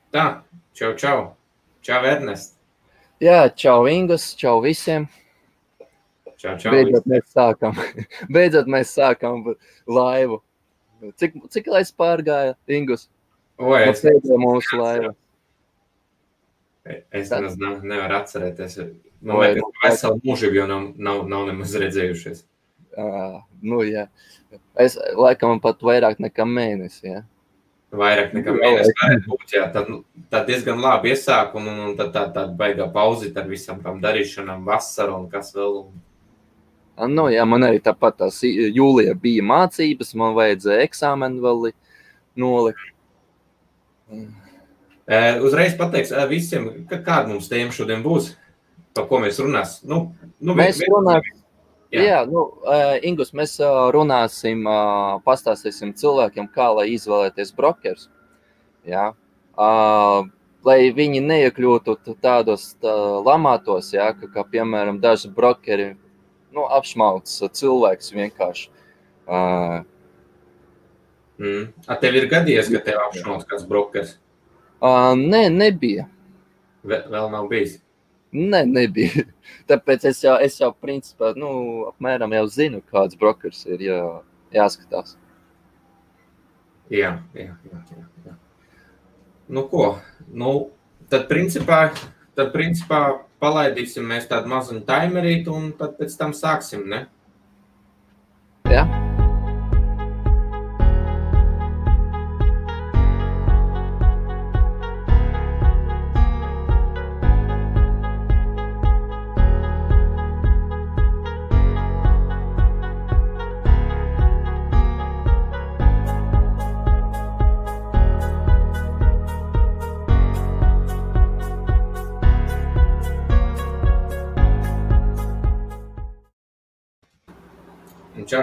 Tā, čau. Čau, Ernest. Jā, čau Ingus, čau visiem. Čau. Beidzot mēs sākam laivu. Cik laiks pārgāja, Ingus? Pēdējā mūsu laiva. Es nevaru atcerēties. Man liekas, ka veselu mūžību jau nav nemaz redzējušies. Jā. Es laikam pat vairāk nekā mēnesi, jā. Vairāk nekā mēnesi varētu būt, jā. Tad diezgan labi iesāk, un tad tā baigā pauzīt ar visam tam darīšanām, vasaru un kas vēl. Jā, man arī tāpat tās jūlijā bija mācības, man vajadzēja eksāmenu vēl nolikt. Uzreiz pateiks visiem, kāda mums tēma šodien būs, par ko mēs runāsim. Mēs runāsim. Jā, Ingus, mēs runāsim, pastāstīsim cilvēkiem, kā lai izvēlēties brokerus. Jā. Lai viņi neiekļūtu tādos lamātos, jā, kā piemēram daži brokeri apšmauc cilvēks vienkārši. Tev ir gadījies, ka tev apšmauc kāds brokers? Nē, nebija. Vēl nav bijis? Nē, nebija. Tāpēc es jau principā, apmēram jau zinu, kāds brokers ir jāskatās. Jā. Ko? Tad principā palaidīsim mēs tādu mazuņu timerītu un tad pēc tam sāksim, ne? Jā.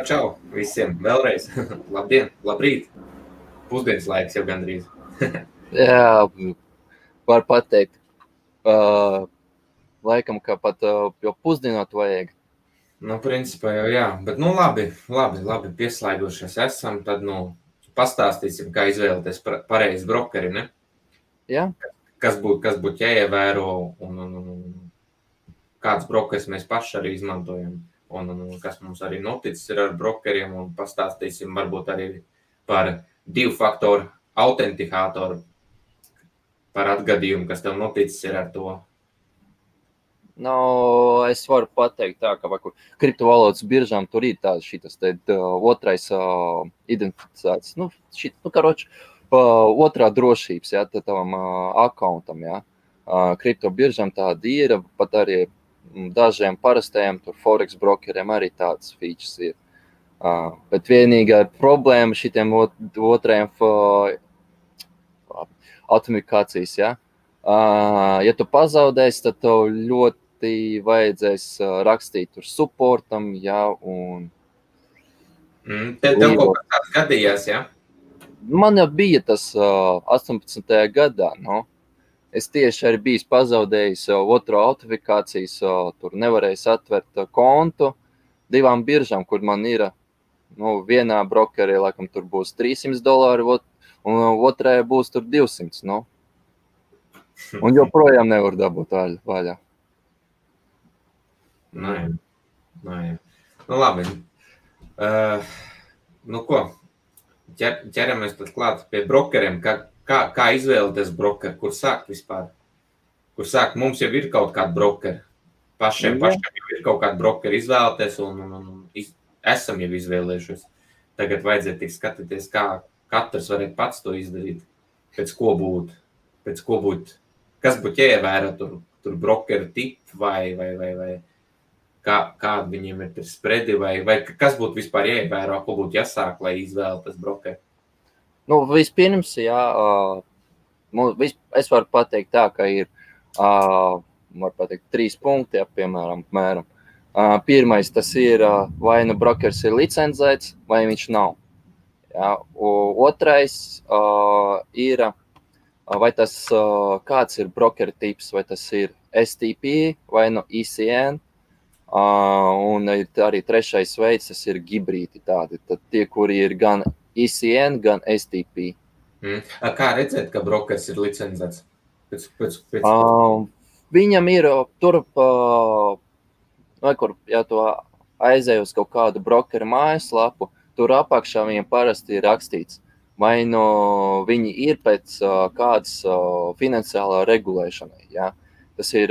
Čau visiem vēlreiz. Labdien, labrīt. Pusdienas laiks jau gandrīz. Jā, var pateikt. Laikam, ka pat jau pusdienot vajag. Principā jau jā. Bet labi pieslēgušies esam. Tad, pastāstīsim, kā izvēlēties pareizi brokeri, ne? Jā. Kas būtu jāievēro un kāds brokeris mēs paši arī izmantojam. Un kas mums arī noticis ir ar brokeriem, un pastāstīsim varbūt arī par 2-faktoru autentikātoru, par atgadījumu, kas tev noticis ir ar to. Es varu pateikt tā, ka kriptovalodas biržām tur ir šitas otrais identificēts, otrā drošības, jā, tavam akauntam, jā. Kripto biržām tāda ir, pat arī dažiem parastajiem tur forex brokeriem arī tāds features ir. Bet vienīgā problēma šitiem otrajiem autentikācijas, ja? Ja tu pazaudēsi, tad tev ļoti vajadzēs rakstīt tur supportam, ja, un... Tev kaut kā tāds gadījās, ja? Man jau bija tas 18. gadā, Es tieši arī biju pazaudējis otro autentikācijas, tur nevarēju atvert kontu 2 biržām, kur man ir, vienā brokerī, laikam, tur būs $300, un otrajā būs tur 200, Un joprojām nevar dabūt vaļā. Jā. Labi. Ko? Ķeramies tad klāt pie brokeriem, Kā izvēlēties brokeri, kur sākt vispār? Kur sākt? Mums jau ir kaut kādi brokeri. Pašiem jau ir kaut kādi brokeri izvēlēties un esam jau izvēlējušies. Tagad vajadzētu tik skatīties, kā katrs varētu pats to izdarīt. Pēc ko būt, kas būtu jāievēro tur brokeru tipi vai kādi viņiem ir spredi vai kas būtu vispār jāievēro, ko būtu jāsāk, lai izvēlēties brokeri? Vispirms, jā, es varu pateikt tā, ka ir, var pateikt, 3 punkti, jā, piemēram. Pirmais, tas ir, vai brokers ir licencēts, vai viņš nav. Jā. Otrais ir, vai tas, kāds ir brokera tips, vai tas ir STP vai ECN. Un arī trešais veids, tas ir hibrīdi tādi. Tad tie, kuri ir gan ECN, gan STP. Kā redzēt, ka brokers ir licencēts? Viņam ir tur, kur, ja tu aizēj uz kaut kādu brokeru mājaslapu, tur apakšā viņam parasti ir rakstīts, vai viņi ir pēc kādas finansiālā regulēšanai. Ja? Tas ir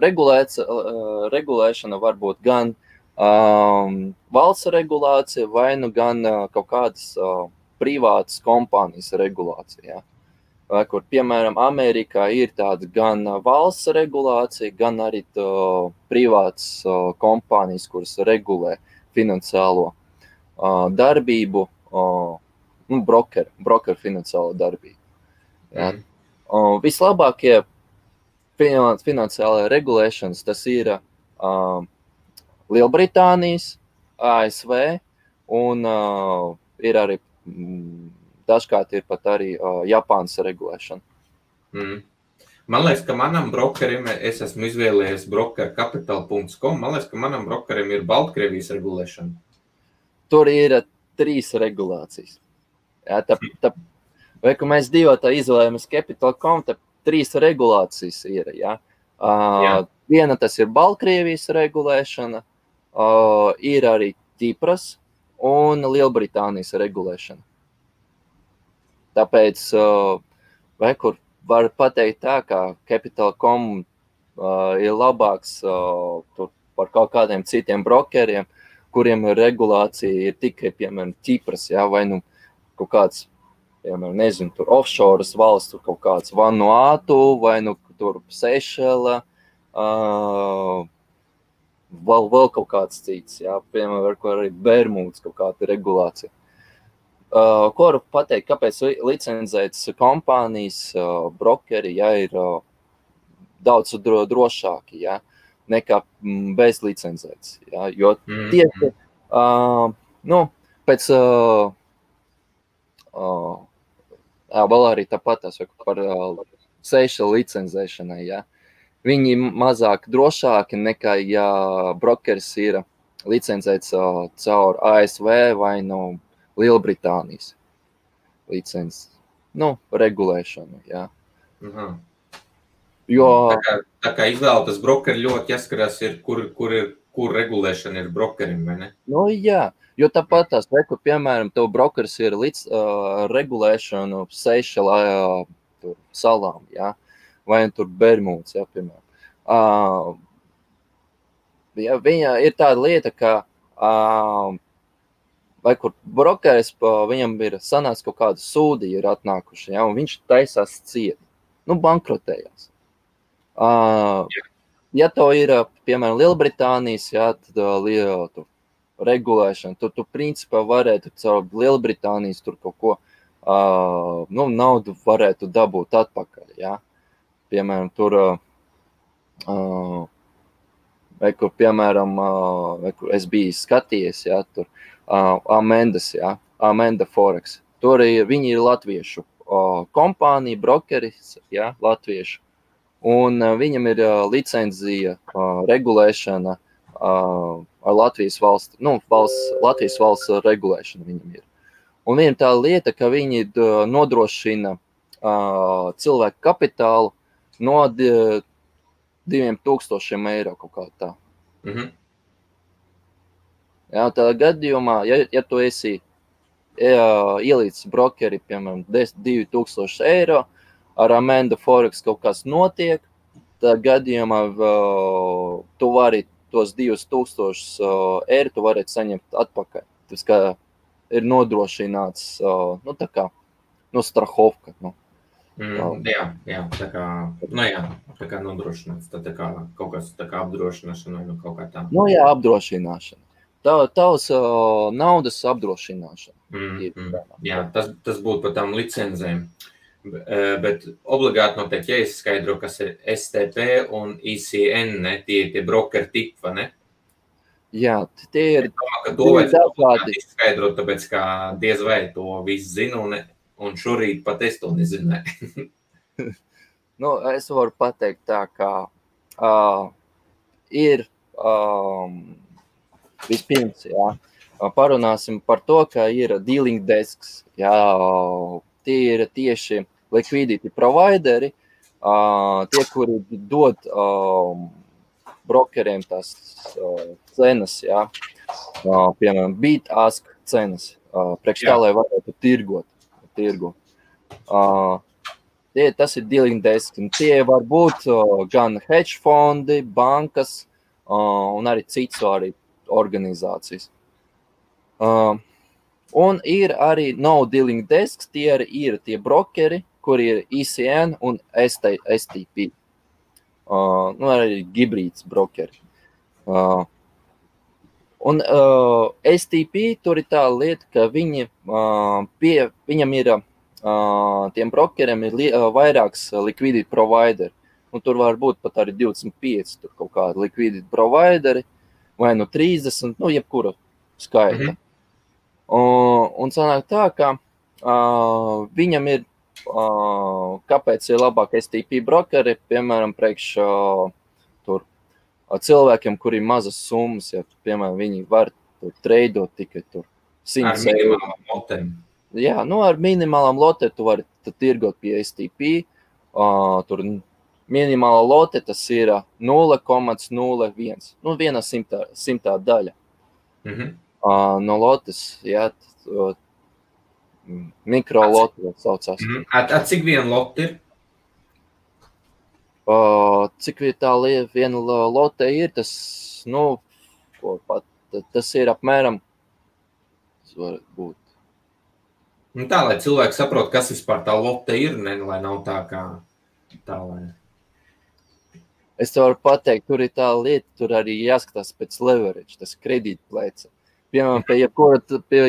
regulēšana varbūt gan valsts regulācija, vai gan kaut kādas privātas kompānijas regulācija. Ja? Vai, kur, piemēram, Amerikā ir tāda gan valsts regulācija, gan arī privātas kompānijas, kuras regulē finansiālo darbību, brokeru finansiālo darbību. Ja? Vislabākie finansiālajā regulēšanas tas ir Lielbritānijas, ASV un ir arī dažkārt ir pat arī Japānas regulēšana. Man liekas, ka manam brokerim, es esmu izvēlējies brokercapital.com, man liekas, ka manam brokerim ir Baltkrievijas regulēšana. Tur ir 3 regulācijas. Jā, vai, ka mēs divotā izvēlējamies Capital.com, tad 3 regulācijas ir. Ja? Viena tas ir Baltkrievijas regulēšana, ir arī Ķipras un Lielbritānijas regulēšana. Tāpēc, vai kur var pateikt tā, ka Capital.com ir labāks par kaut kādiem citiem brokeriem, kuriem regulācija ir tikai, piemēram, Ķipras, ja, vai kaut kāds, piemēram, nezinu, tur offshore valsts, tur kaut kāds Vanuatu, vai tur Seišela, vēl kaut kāds cits, ja, piemēram, arī Bermudas kaut kāda regulācija. Ko varu pateikt, kāpēc licencētas kompānijas, brokeri, ja, ir daudz drošāki, ja, nekā bez licencētas. Ja, jo tieši, pēc, vēl arī tāpat par Seišelu licencēšanai, ja, viņi mazāk drošāki nekā, ja brokeris ir licencēts caur ASV vai Lielbritānijas licences, regulēšanu, jā. Jo... Tā kā izvēlētas brokeri ļoti jāskarās, kur regulēšana ir brokerim, vai ne? Jā, jo tāpat tās, kur, piemēram, tev brokeris ir regulēšanu Seišelā salām, jā, vai tur Bermudas, jā, piemēram. Viņa ir tāda lieta, ka vai kur brokeris, viņam ir sanāks kaut kāda sūdi ir atnākuši, ja, un viņš taisās ciet, bankrotējās. Ja tev ir, piemēram, Lielbritānijas, ja, tad regulēšana, tu principā varētu caur Lielbritānijas tur kaut ko, naudu varētu dabūt atpakaļ, ja. Piemēram, tur, vai kur, piemēram, vai kur es biju skatījies, ja, tur, Amendas, ja, Amenda Forex. Tur viņi ir latviešu kompānija, brokeris, ja, latviešu. Un viņam ir licencija, regulēšana ar Latvijas valsts, Latvijas valsts regulēšana viņam ir. Un viņam tā lieta, ka viņi nodrošina cilvēku kapitālu no 2,000 eiro kaut kā tā. Jā, tādā gadījumā, ja tu esi ielīdz brokeri, piemēram, 2,000 eiro, ar Amenda Forex kaut kas notiek, tādā gadījumā tu vari tos 2,000 eiro, tu varētu saņemt atpakaļ. Tas kā ir nodrošināts, tā kā, strahovka, Jā, tā kā nodrošināts, tā kā kaut kas tā kā apdrošināšana vai kaut kā tā. Jā, apdrošināšana. Tavs naudas apdrošināšana. Jā, tas būtu par tām licencēm. Bet obligāti noteikti jāizskaidro, kas ir STP un ICN, ne? Tie brokeri tipi, vai ne? Jā, tie ir to vajadzētu izskaidrot, tāpēc kā diez vai to visu zinu, un šorīt pat es to nezināju. Es varu pateikt tā, kā ir vispirms, jā, parunāsim par to, ka ir dealing desks, jā, tie ir tieši liquidity provideri, tie, kuri dod brokeriem tās cenas, jā. Piemēram, bid-ask cenas, priekš tā, lai varētu tirgot. Tas ir dealing desk, un tie var būt gan hedge fondi, bankas un arī citas arī organizācijas. Un ir arī no dealing desks, tie ir tie brokeri, kuri ir ECN un STP. Arī hibrīds brokeri. Un STP tur ir tā lieta, ka viņam ir, tiem brokeriem ir vairāks liquidity provideri. Un tur var būt pat arī 25 tur kaut kādi liquidity provideri, vai 30, jebkura skaita. Un sanāk tā, ka viņam ir, kāpēc ir labāk STP brokeri, piemēram, priekš tur cilvēkiem, kuri ir mazas summas, ja, piemēram, viņi var tur treidot tikai tur 100 eiro. Ar minimālām lotēm. Jā, ar minimālām lotēm tu vari tirgot pie STP. Tur minimāla lote tas ir 0,01. Viena simtā daļa. No lotes, jā, mikrolote saucās. Cik viena lote ir? Cik tā viena lote ir, tas, tas ir apmēram, tas var būt. Tā, lai cilvēki saprot, kas vispār tā lote ir, lai nav tā kā tā, lai... Es te varu pateikt, tur ir tā lieta, tur arī jāskatās pēc leverage, tas kredītplēce. Piemēram, pie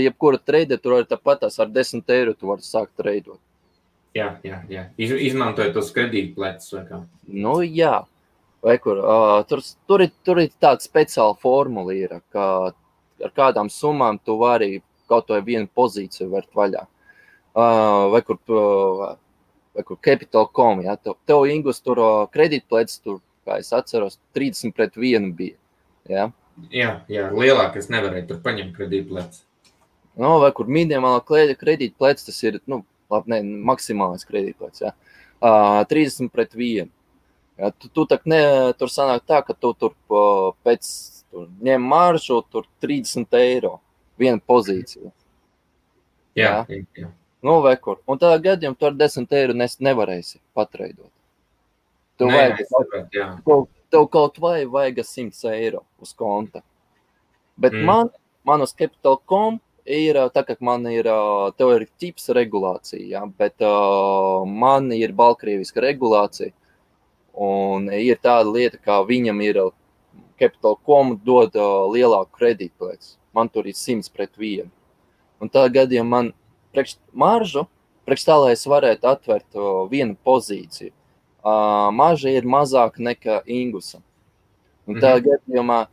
jebkura treide, tur arī tāpatās ar 10 eiro tu vari sākt treidot. Jā. Izmantojot tos kredītpleces vai kā? Jā. Vai kur? Tur ir tāda speciāla formula ir, ka ar kādām summām tu vari kaut vai vienu pozīciju vērt vaļā. Vai kur Capital.com, jā. Tev, Ingus, tur kredītpleces, tur, kā es atceros, 30-1 bija, jā. Jā, lielāk es nevarēju tur paņemt kredītpleces. Vai kur minimālā kredītpleces, tas ir, maksimālais kredītpleces, jā. 30-1. Jā, tur sanāk tā, ka tu tur pēc ņem maržu, tur 30 eiro, viena pozīcija. Jā. Vai kur. Un tādā gadījumā tu ar 10 eiro nevarēsi patreidot. Tev kaut vai vajag 100 eiro uz konta. Bet man uz Capital.com ir, tā kā tev ir tips regulācija, jā, bet man ir Baltkrievijas regulācija. Un ir tāda lieta, kā viņam ir Capital.com dod lielāku kredītplēci. Man tur ir 100-1. Un tādā gadījumā man maržu, priekš tā, lai es varētu atvērt vienu pozīciju, marža ir mazāka nekā Ingusam. Un tādā gadījumā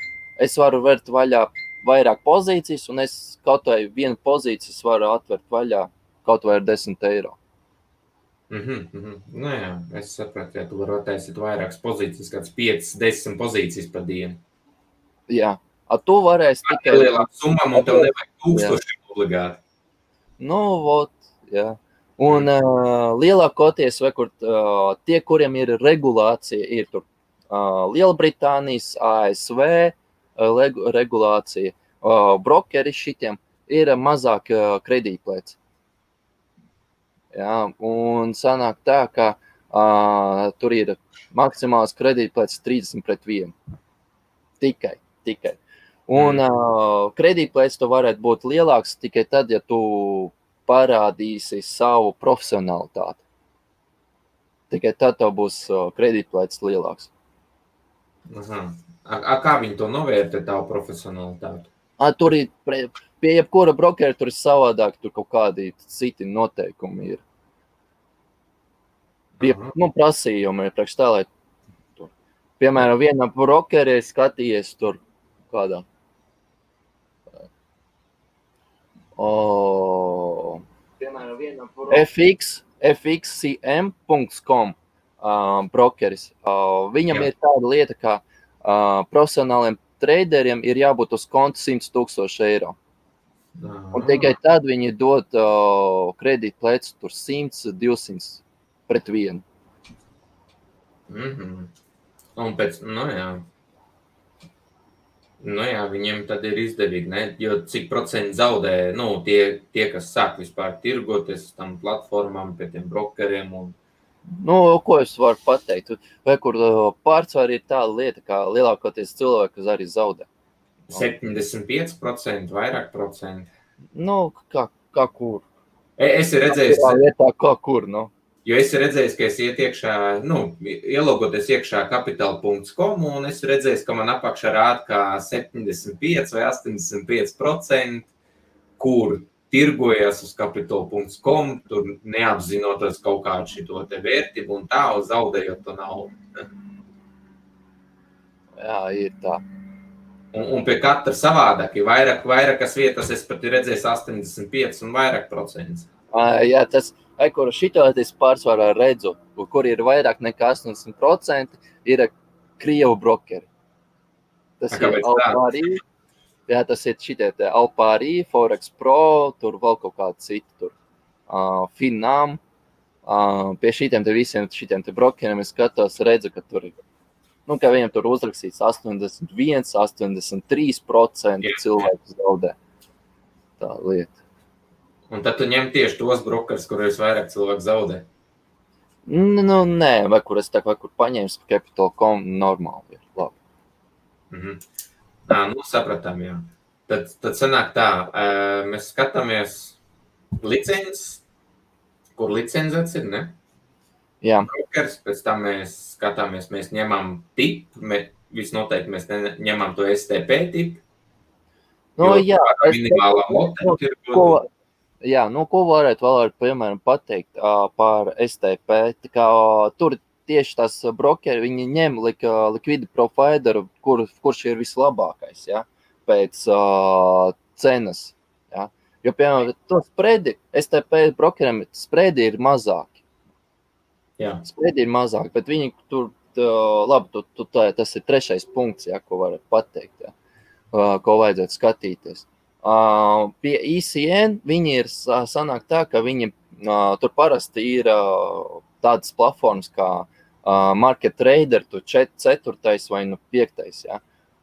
es varu vērt vaļā vairāk pozīcijas, un es kaut vai vienu pozīcijas varu atvērt vaļā kaut vai ar 10 eiro. Jā, es sapratu, ja tu vari attaisīt vairākas pozīcijas, kāds 5-10 pozīcijas pa dienu. Jā, tu varēsi tikai... Ar lielām summām, un tev nevajag 1000 obligāti. Jā. Un lielākoties, vai kur tie, kuriem ir regulācija, ir tur Lielbritānijas, ASV regulācija, brokeri šitiem ir mazāk kredītplēci. Jā, un sanāk tā, ka tur ir maksimāls kredītplēcis 30-1. Tikai. Un kredītplēcis tu varētu būt lielāks tikai tad, ja tu parādīsi savu profesionalitāti. Tikai tad tev būs kredītplēcis lielāks. Kā viņi to novērtē, tavu profesionalitāti? Tur ir, pie jebkura brokera tur ir savādāk, tur kaut kādi citi noteikumi ir. Prasījumi ir priekš tā, lai tur. Piemēram, vienā brokerē skatījies tur kādā. FXCM.com brokeris. Viņam ir tāda lieta, ka profesionāliem traderiem ir jābūt uz konta 100 000 eiro. Un tikai tad viņi dod kredītplecu tur 100, 200 pret vienu. Un pēc, viņiem tad ir izdevīgi, ne? Jo cik procenti zaudē, tie, kas sāk vispār tirgoties tam platformām, pie tiem brokeriem un... Ko es varu pateikt? Vai kur pārsvar ir tāda lieta, kā lielākoties cilvēki, kas arī zaudē? 75%, vairāk procenti. Kā kur? Es redzēju... Lietā, kā kur, Jo es redzēju, ka es iet iekšā, ielogoties iekšā kapital.com, un es redzēju, ka man apakšā rāda kā 75 vai 85%, kur tirgojas uz kapital.com, tur neapzinoties kaut kādu šito te vērtību un tā, zaudējot to naudu. Jā, ir tā. Un pie katra savādāk, ja vairākas vietas es pat redzēju 85 un vairāk procents. Jā, tas... kur šito es pārsvarā redzu, kur ir vairāk nekā 80%, ir Krievu brokeri. Tas ir Alpārī, tas ir šitie te Alpārī, Forex Pro, tur vēl kaut kādi citi tur, Finnam. Pie šitiem te visiem šitiem te brokeriem es skatos, redzu, ka tur ir, ka viņam tur uzrakstīts 81, 83% cilvēku zaudē. Tā lieta. Un tad tu ņem tieši tos brokers, kurus vairāk cilvēku zaudē? Nē, vai kur es vai kur paņēmu Capital.com, normāli ir, labi. Sapratām, jā. Tad sanāk tā, mēs skatāmies licences, kur licencēts ir, ne? Jā. Brokers, pēc tam mēs skatāmies, mēs ņemam tipu, visnoteikti mēs ņemam to STP tipu. Jā. Minimālā lote ir. Jā, ko varētu vēl, piemēram, pateikt par STP? Tā kā tur tieši tās brokeri, viņi ņem liquidity provideru, kurš ir vislabākais, ja, pēc cenas. Ja. Jo, piemēram, to spredi, STP brokeriem spredi ir mazāki. Jā. Spredi ir mazāki, bet viņi tur, labi, tas ir trešais punkts, ja, ko varat pateikt, ja, ko vajadzētu skatīties. Pie ECN viņi ir sanāk tā, ka viņi tur parasti ir tādas platformas kā Market Trader, tu 4. vai 5. Ja?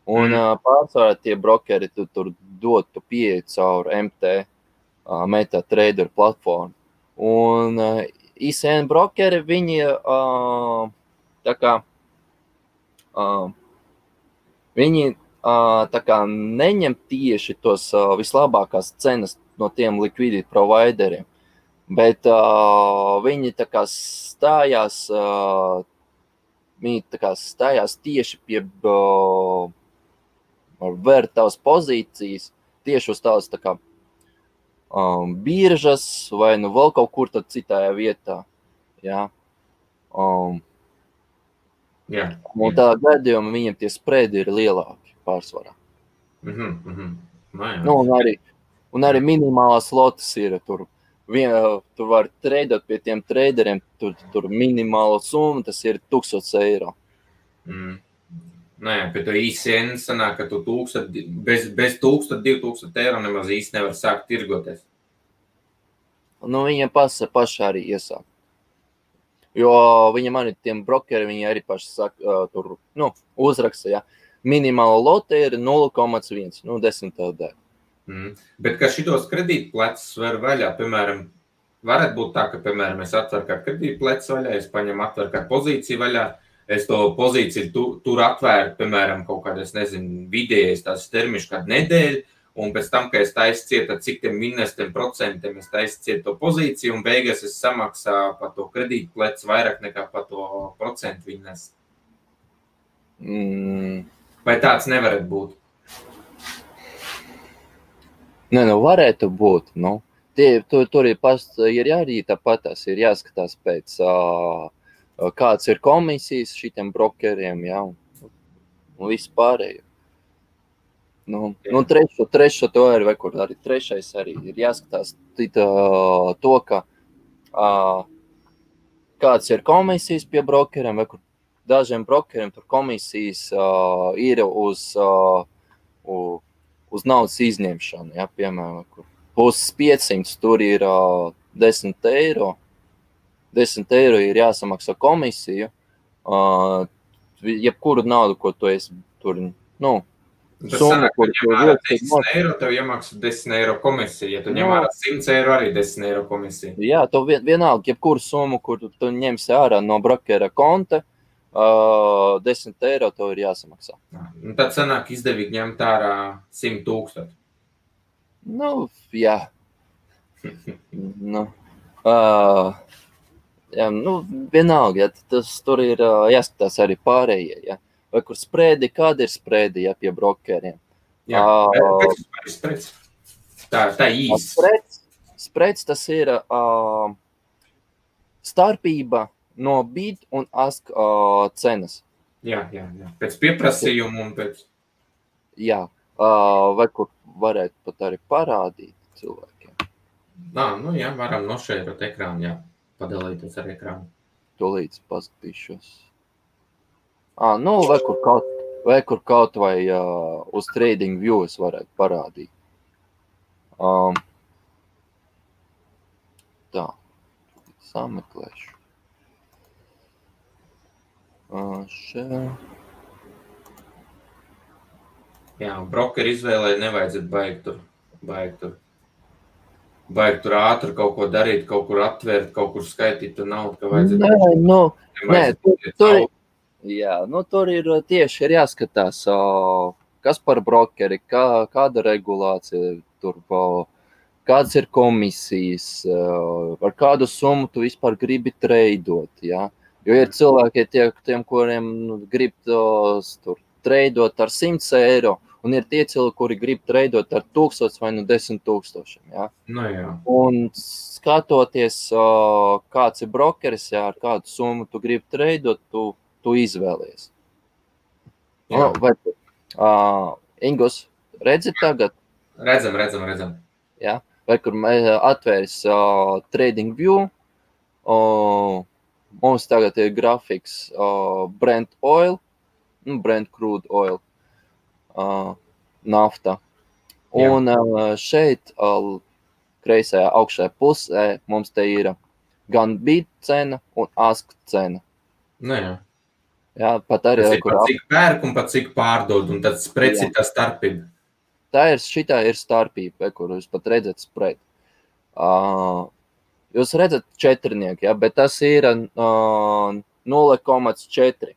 Un pārsvarā tie brokeri tur dod tu pieeju caur MT, MetaTrader platformu. Un ECN brokeri viņi tā kā viņi tā kā neņem tieši tos vislabākās cenas no tiem liquidity provideriem, bet viņi tā kā stājās tieši pie vērtās pozīcijas, tieši uz tās tā kā biržas vai vēl kaut kur tad citajā vietā. Jā. Jā. Un tā gadījumā viņiem tie spredi ir lielāki pārsvarā. Un arī minimālās lotas ir tur. Tu vari treidot pie tiem traderiem, tur minimāla summa, tas ir 1000 eiro. Pie to ICN sanāk, ka tu bez 1000-2000 eiro nemaz īsti nevar sākt tirgoties. Viņiem paši arī iesāk. Jo viņam arī tiem brokeri, viņi arī paši saka, tur, uzraksta, ja. Minimāla lote ir 0,1, 10 daļa. Bet ka šitos kredītplecus var vaļā, piemēram, varētu būt tā, ka, piemēram, es atveru kā kredītplecu vaļā, es paņemu atveru kā pozīciju vaļā, es to pozīciju tur atvēru, piemēram, kaut kādā, es nezinu, vidējais tās termiņš kādu nedēļu, un pēc tam, ka es taisu ciet, cik tiem minestiem procentiem es taisu ciet to pozīciju, un beigās es samaksāju par to kredītplecu vairāk nekā par to procentu vinnest. Vai tāds nevarētu būt? Varētu būt. Tur ir arī tāpatās, ir jāskatās pēc, kāds ir komisijas šitiem brokeriem, jā, un visu pārējo. Trešo to arī, vai kur arī trešais arī ir jāskatās to, ka kāds ir komisijas pie brokeriem, vai kur dažiem brokeriem tur komisijas ir uz uz naudas izņemšanu, ja, piemēram, kur puses 500, tur ir 10 eiro. 10 eiro ir jāsamaksā komisiju. Jebkuru naudu, ko tu esi tur, Tas sanāk, ka ņem ārā 10 eiro, tev iemaksā 10 eiro komisija. Ja tu ņem ārā 100 eiro, arī 10 eiro komisija. Jā, tev vienalga, jebkuru summu, kur tu ņemsi ārā no brokera konta, 10 eiro tev ir jāsamaksā. Tad sanāk izdevīgi ņemt ārā 100 000. Jā. Jā, vienalga, ja, tur ir jāskatās arī pārējie, ja. Vai kur sprēdi, kāda ir sprēdi, ja, pie brokeriem? Jā, sprēds. Tā īsti. Sprēds tas ir starpība no bid un ask cenas. Jā. Pēc pieprasījuma un pēc... Jā, vai kur varētu pat arī parādīt cilvēkiem. Jā, varam nošērot ekrānu, jā. Padalīties ar ekrānu. Tolīdz paskatīšos. Vai kur kaut vai uz Trading View es varētu parādīt. Tā, sameklēšu. Jā, brokeri izvēlē nevajadzētu baigt tur ātri kaut ko darīt, kaut kur atvērt, kaut kur skaitīt tu naudu, ka vajadzētu... Tur ir tieši jāskatās, kas par brokeri, kāda regulācija tur, kādas ir komisijas, ar kādu summu tu vispār gribi treidot, ja? Jo ir cilvēki tiem, kuriem grib tur treidot ar 100 eiro, un ir tie cilvēki, kuri grib treidot ar 1000 vai 10 000. Ja? Jā. Un skatoties, kāds ir brokeris, ja, ar kādu summu tu gribi treidot, tu izvēlies. Ingus, redzi tagad? Redzam. Ja? Vai kur atvērs Trading View, mums tagad ir grafiks Brent oil, Brent crude oil, nafta. Un šeit, kreisajā augšējā pusē, mums te ir gan bid cena un ask cena. Jā, pat arī... Tas ir pat cik pērk un pat cik pārdod, un tad spreds ir tā starpība. Šitā ir starpība, kur jūs pat redzat spread. Jūs redzat četrnieki, ja, bet tas ir 0,4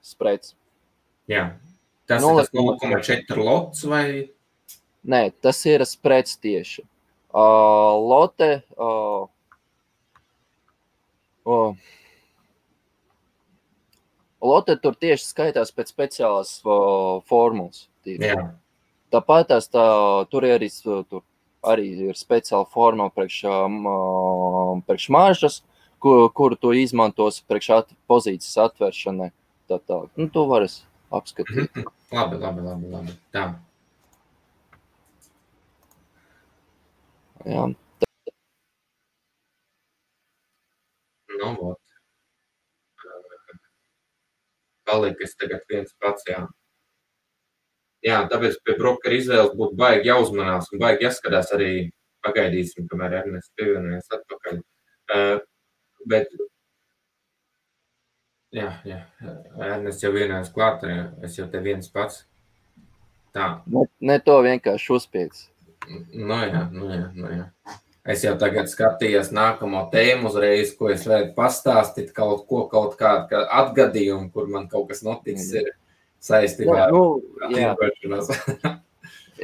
spreds. Jā. Tas ir 0,4 lots vai? Nē, tas ir spreds tieši. Lote... Lote tur tieši skaitās pēc speciālās formulas. Jā. Tāpat tur arī ir speciāla formula priekš maržas, kuru tu izmantos priekš pozīcijas atvēršanai. Tā. Tu vari apskatīt. Labi. Tā. Jā. Vot. Palikas tagad viens pats, jā. Jā, tāpēc pie brokera izvēles būtu baigi jāuzmanās un baigi jāskatās arī pagaidīsim, kamēr Ernests pievienojas atpakaļ. Bet, jā, Ernests jau vienojas klāt, es jau te viens pats. Tā. Ne to vienkārši uzspiedz. Jā. Es jau tagad skatījos nākamo tēmu uzreiz, ko es varētu pastāstīt, kaut kādu atgadījumu, kur man kaut kas noticis ir saistībā ar tirgošanos.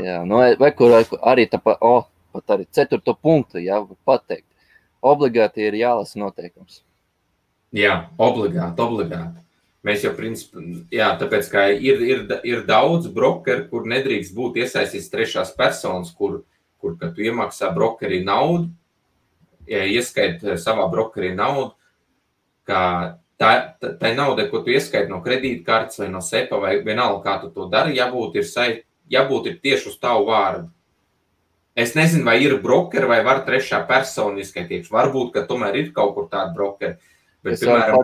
Jā, vai kur arī pat arī 4. punktu, jā, pateikt. Obligāti ir jālasa noteikums. Jā, obligāti. Mēs jau principā, tāpēc, ka ir daudz brokeru, kur nedrīkst būt iesaistīts trešās personas, kur kad tu iemaksā brokerī naudu, ieskait savā brokerī naudu, ka tai naudai, ko tu ieskaiti no kredītkartes vai no SEPA vai vienalga, kā tu to dari, jābūt ir tieši uz tavu vārdu. Es nezinu, vai ir brokeri vai var trešā persona izskaitījuši. Varbūt, ka tomēr ir kaut kur tāda brokeri. Bet, piemēram,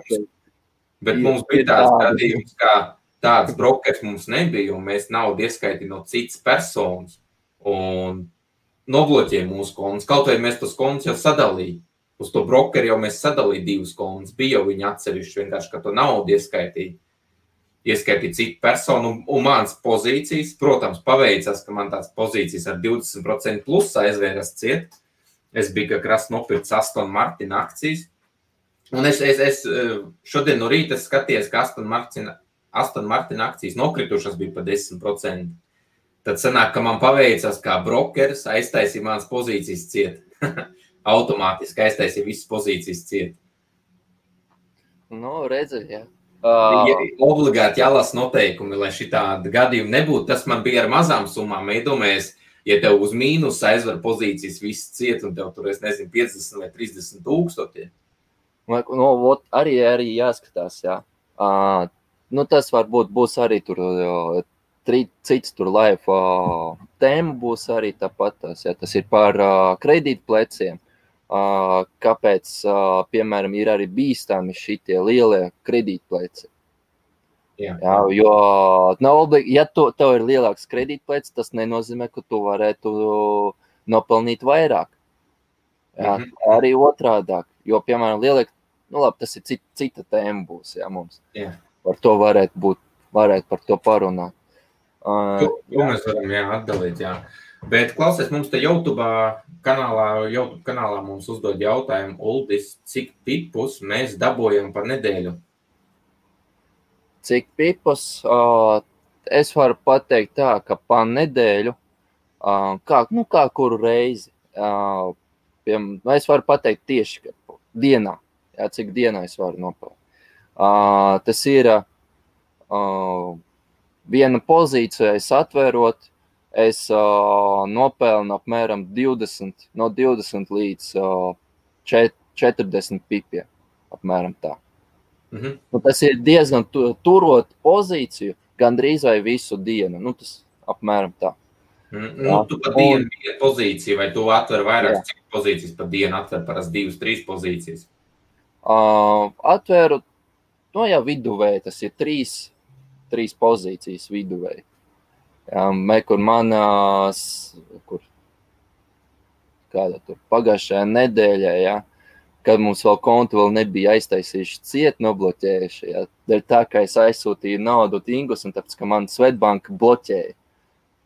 mums bija tāds gadījums, kā tāds brokers mums nebija, un mēs naudu ieskaitīja no citas personas, un nobloķēja mūsu kontus. Kaut vai mēs tos kontus jau sadalīja. Uz to brokeri jau mēs sadalīja 2 kontus. Bija jau viņi atsevišķi vienkārši, ka to naudu ieskaitīja citu personu. Un mans pozīcijas, protams, paveicās, ka man tās pozīcijas ar 20% plus aizvēras ciet. Es biju kā krasti nopircis Aston Martin akcijas. Un es šodien no rīta skatījos, ka Aston Martin akcijas nokritušas bija pa 10%. Tad sanāk, ka man paveicās kā brokeris, aiztaisīja manas pozīcijas ciet. Automātiski aiztaisīja visas pozīcijas ciet. Nu, redzi, jā. Obligāti jālasa noteikumi, lai šitādi gadījumi nebūtu. Tas man bija ar mazām summām. Iedomājies, ja tev uz mīnus aizver pozīcijas visas ciet, un tev tur, es nezinu, 50 vai 30 tūkstoši. Nu, arī jāskatās, jā. Nu, tas varbūt būs arī tur cits tur live tēma būs arī tāpat. Jā. Tas ir par kredītpleciem. Kāpēc, piemēram, ir arī bīstami šitie lielie kredītpleci. Jā, jo ja tev ir lielāks kredītpleci, tas nenozīmē, ka tu varētu nopelnīt vairāk. Jā, arī otrādāk, jo, piemēram, lielāk, nu labi, tas ir cita tēma būs, jā, mums. Jā. Par to varētu par to parunāt. To mēs varam, atdalīt, jā. Bet, klausies, mums te YouTube kanālā mums uzdod jautājumu, Uldis, cik pipus mēs dabojam par nedēļu? Cik pipus? Es varu pateikt tā, ka pa nedēļu, kā kuru reizi, es varu pateikt tieši dienā, cik dienā es varu nopelnīt. Tas ir viena pozīcija, es atvērot, es nopelnu apmēram 20 līdz 40 pipiem, apmēram tā. Nu, tas ir diezgan turot pozīciju, gandrīz vai visu dienu, nu tas apmēram tā. Nu, tu pa dienu vienu pozīciju, vai tu atver vairāk, cik pozīcijas pa dienu atver parasti 2-3 pozīcijas? Atveru, nu jau viduvēji, tas ir 3 pozīcijas viduvēji. Kur pagājušajā nedēļā, kad mums vēl kontu vēl nebija aiztaisījuši ciet, nobloķējuši. Dēļ tā, ka es aizsūtīju naudu Ingus, un tāpēc, ka man Svetbanka bloķēja.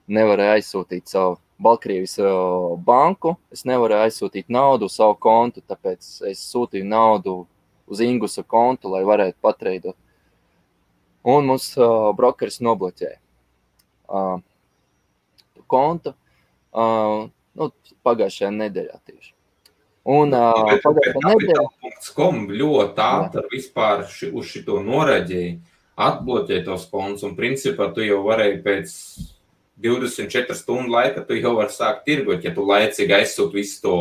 Nevarēju aizsūtīt savu Baltkrievijas banku, es nevarēju aizsūtīt naudu uz savu kontu, tāpēc es sūtīju naudu uz Ingusa kontu, lai varētu patreidot. Un mums brokeris nobloķēja kontu pagājušajā nedēļā tieši. Un Capital.com ļoti ātri vispār uz šito noraģēja, atbloķēja tos kontus, un principā tu jau varēji pēc 24 stundu laika, tu jau vari sākt tirgot, ja tu laicīgi aizsūt visu to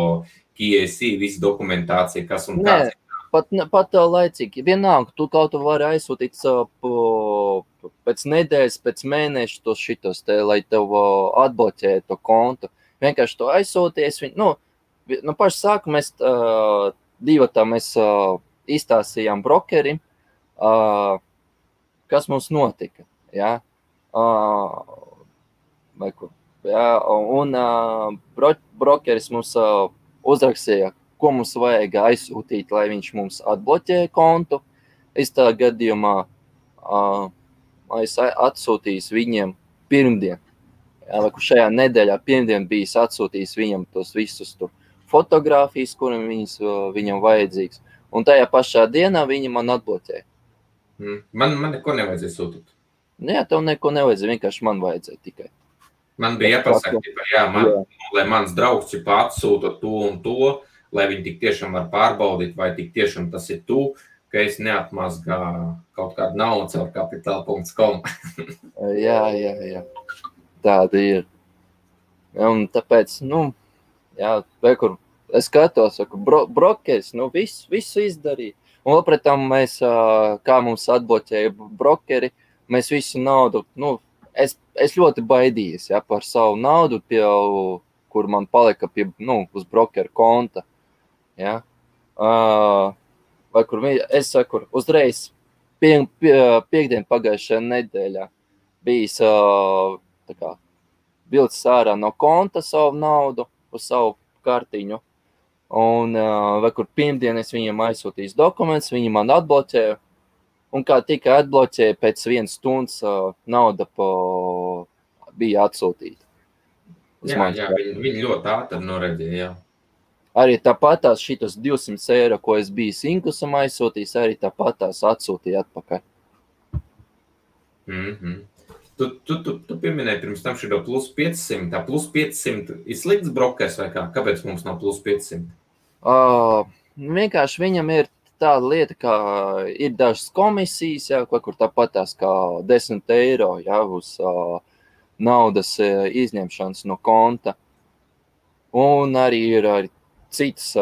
KYC, visu dokumentāciju, kas un kāds. Pat laicīgi. Vienalga, tu kaut vari aizsūtīt pēc nedēļas, pēc mēneša tos šitos, lai tev atbloķē to kontu. Vienkārši to aizsūties. Paši sāku mēs mēs izstāstījām brokerim, kas mums notika. Ja? Un brokeris mums uzrakstīja, ko mums vajag aizsūtīt, lai viņš mums atbloķē kontu. Es tā gadījumā es atsūtījis viņiem pirmdien. Šajā nedēļā pirmdien bijis atsūtījis viņam tos visus tur fotogrāfijas, kuram viņam vajadzīgs. Un tajā pašā dienā viņi man atbloķēja. Man neko nevajadzēja sūtīt. Jā, tev neko nevajadzēja, vienkārši man vajadzēja tikai. Man bija jāpasaka, lai mans draugs atsūta to un to, lai viņi tik tiešām var pārbaudīt, vai tik tiešām tas ir tu, ka es neatmazgā kaut kādu naudu caur Capital.com. Jā. Tāda ir. Un tāpēc, kur es skatos, brokeris, visu izdarīja. Un vēl pret tam mēs, kā mums atbloķēja brokeri, mēs visu naudu, es ļoti baidījos par savu naudu, kur man palika uz brokeru konta. Ja? Vai kur es saku, uzreiz Piektdien pagājušajā nedēļā bijis vilcis ārā no konta savu naudu uz savu kartiņu. Un vai kur pirmdien es viņam aizsūtīju dokumentus, viņi man atbloķēja. Un kā tika atbloķēja, pēc 1 stundas nauda bija atsūtīta. Jā, viņi ļoti ātri noreģēja, jā. Arī tāpatās šitas 200 eiro, ko es biju Sinkusam aizsūtījis, arī tāpatās atsūtīja atpakaļ. Tu pieminēji pirms tam šito plus 500. Tā plus 500 ir slikts brokers vai kā? Kāpēc mums nav plus 500? Vienkārši viņam ir tāda lieta, kā ir dažas komisijas, jā, kur tāpatās kā 10 eiro, jā, uz naudas izņemšanas no konta. Un arī ir citas,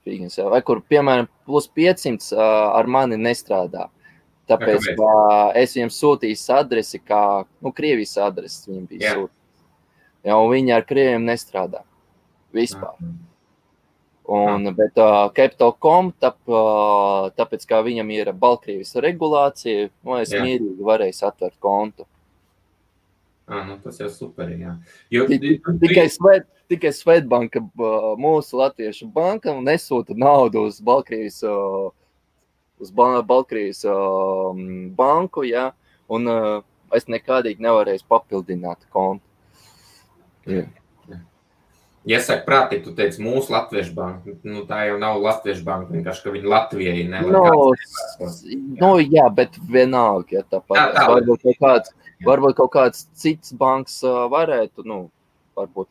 vai kur, piemēram, plus 500 ar mani nestrādā. Tāpēc es viņam sūtīju adresi, kā, Krievijas adresi viņam bija sūtīt. Ja, un viņi ar krieviem nestrādā vispār. Bet Capital.com, tāpēc, kā viņam ir Baltkrievijas regulācija, es mierīgi varēju atvērt kontu. Tas jau super, jā. Tikai Svetbanka, mūsu latviešu banka, nesūta naudu uz Baltkrievijas banku, jā, un es nekādīgi nevarēju papildināt kontu. Jā. Ja saka prātīgi, tu teici mūsu latviešu banka, tā jau nav latviešu banka, vienkārši, ka viņi Latvijai jā, bet vienalga, ja tāpat. Varbūt kaut kāds cits banks varētu, varbūt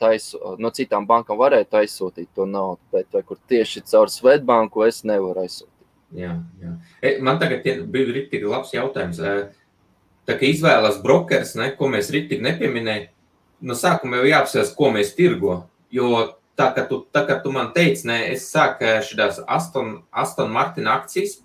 no citām bankām varētu aizsūtīt to naudu, bet vai kur tieši caur Svetbanku es nevaru aizsūtīt. Jā. Man tagad bija riktīgi labs jautājums. Tā kā izvēlas brokers, ko mēs riktīgi nepieminēja, no sākuma jau jāapsvērs, ko mēs tirgo. Jo tā, ka tu man teici, es sāku šitās Aston Martin akcijas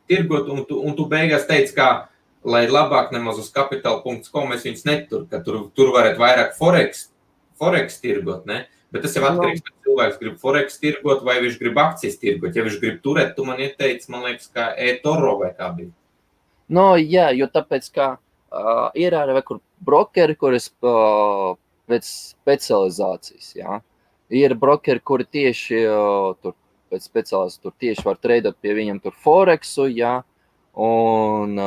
tirgot, un tu beigās teici, kā, lai labāk nemaz uz capital.com es viņus netur, ka tur varētu vairāk forex tirgot, ne? Bet tas jau atkarīgs, ka cilvēks grib forex tirgot vai viņš grib akcijas tirgot. Ja viņš grib turēt, tu man ieteici, man liekas, kā eToro vai kā bija. Jā, jo tāpēc, kā ir arī kur brokeri, kuras pēc specializācijas, jā. Ir brokeri, kuri tieši pēc specializācijas tur tieši var treidot pie viņiem tur forexu, jā, un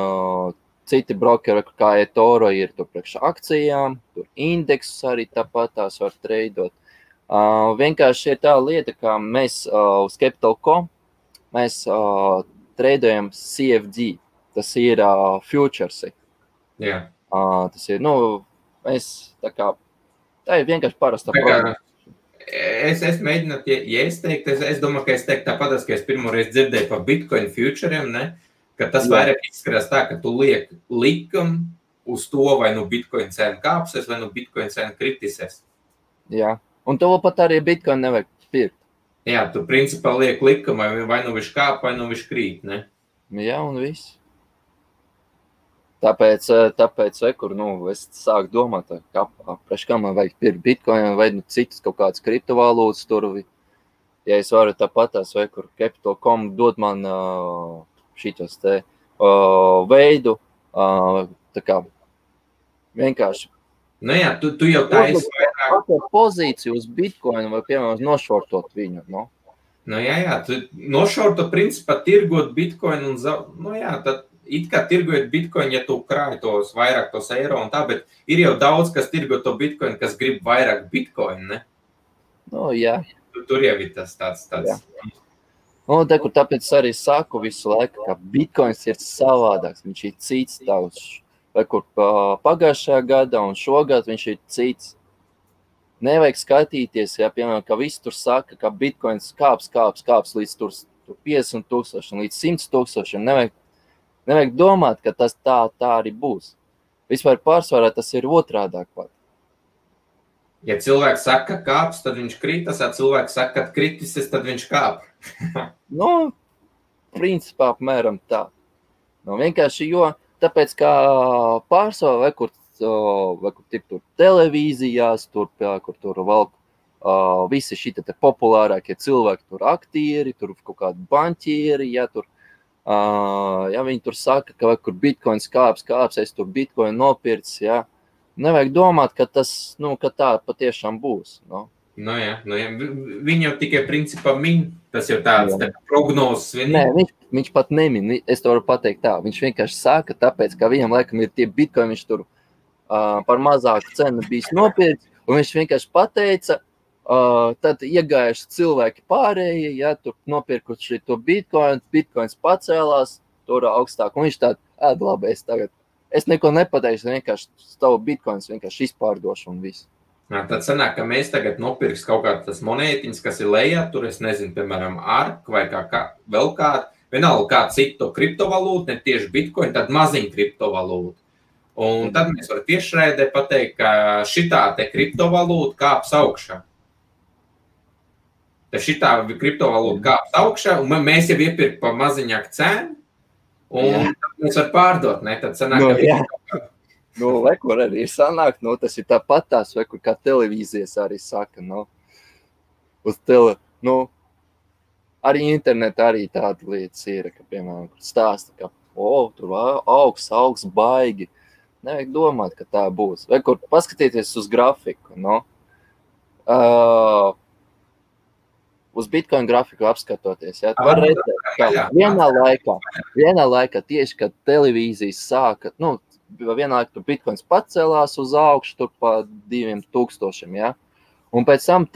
citi brokeri, kā eToro, ir tur priekš akcijām, tur indeksus arī tāpat tās var treidot. Vienkārši ir tā lieta, kā mēs uz Capital.com mēs treidojam CFD, tas ir futuresi. Jā. Tas ir, tā ir vienkārši parasta programma. Es mēģinu, ja es teiktu, es domāju, ka es teiktu tāpat, ka es pirmoreiz dzirdēju par Bitcoin futuriem, ne? Ka tas vairāk izskatās tā, ka tu liek likumu uz to, vai Bitcoin cena kāpsies, vai Bitcoin cena kritisēs. Jā, un to pat arī Bitcoin nevajag pirkt. Jā, tu principā liek likumu, vai viņš kāp, vai viņš krīt, ne? Jā, un viss. Tāpēc kur, es sāku domāt, kā man vajag pirkt Bitcoin vai citas kaut kādas kriptovalūtas tur. Ja es varu tāpatās, vai kur Capital.com dod man šitos te veidu, tā kā vienkārši. Jā, tu jau taisi vairāk. Pozīciju uz Bitcoin vai, piemēram, nošortot viņu, Jā, tu nošortot principā tirgot Bitcoin un tad it kā tirgojot Bitcoin, ja tu krāji tos vairāk tos eiro un tā, bet ir jau daudz, kas tirgo to Bitcoin, kas grib vairāk Bitcoin, ne? Jā. Tur jau ir tas tāds. Tāpēc arī saku visu laiku, ka Bitcoins ir savādāks, viņš ir cits tauts. Vai kur pagājušajā gadā un šogad viņš ir cits. Nevajag skatīties, ja, piemēram, ka viss tur saka, ka Bitcoins kāps līdz tur 50,000, līdz 100,000. Nevajag domāt, ka tas tā arī būs. Vispār pārsvarā tas ir otrādāk pat. Ja cilvēks saka, ka kāps, tad viņš krītas, ja cilvēks saka, ka kritises, tad viņš kāp. Principā apmēram tā. Vienkārši, tāpēc, kā pārsvarā vai kur tur televīzijās, kur tur valk visi šitie te populārākie cilvēki, tur aktieri, tur kaut kādi banķieri, ja tur Ja viņi tur saka, ka kur bitcoins kāps, es tur bitcoin nopircis, ja. Nevajag domāt, ka tas, ka tā patiešām būs. Jā. Viņi jau tikai principā min, tas jau tāds prognozes. Nē, viņš pat nemin, es to varu pateikt tā. Viņš vienkārši saka, tāpēc, ka viņam laikam ir tie bitcoin, viņš tur par mazāku cenu bijis nopircis, un viņš vienkārši pateica, tad iegājuši cilvēki pārējie, ja tur nopirkuši to bitcoins pacēlās, tur augstāk, un viņš tād, labi, es neko nepateikšu, vienkārši tavu bitcoins vienkārši izpārdošu un viss. Tad sanāk, ka mēs tagad nopirks kaut kāds tas monētiņas, kas ir lejā, tur es nezinu, piemēram, ARK vai vēl kādu, vienalga kādu citu kriptovalūtu, ne tieši bitcoin, tad maziņu kriptovalūtu. Un tad mēs varam tiešraidē pateikt, ka šitā te kriptovalūta kāps augšā. Tad šitā kriptovalūta kāps augšā, un mēs jau iepirk pa maziņāku cenu, un tad mēs varam pārdot, ne? Tad sanāk, ka Kur arī ir sanāk, tas ir tāpat tās, vai kur kā televīzijas arī saka, arī internetā arī tāda lietas ir, ka, piemēram, kur stāsta, ka, tur augs baigi. Nevajag domāt, ka tā būs. Vai kur paskatieties uz grafiku, uz Bitcoin grafiku apskatoties, ja, var redzēt, ka vienā laikā tieši, kad televīzijas sāka, vienā laikā Bitcoins pacēlās uz augšu, tur pa 2000, ja, un pēc tam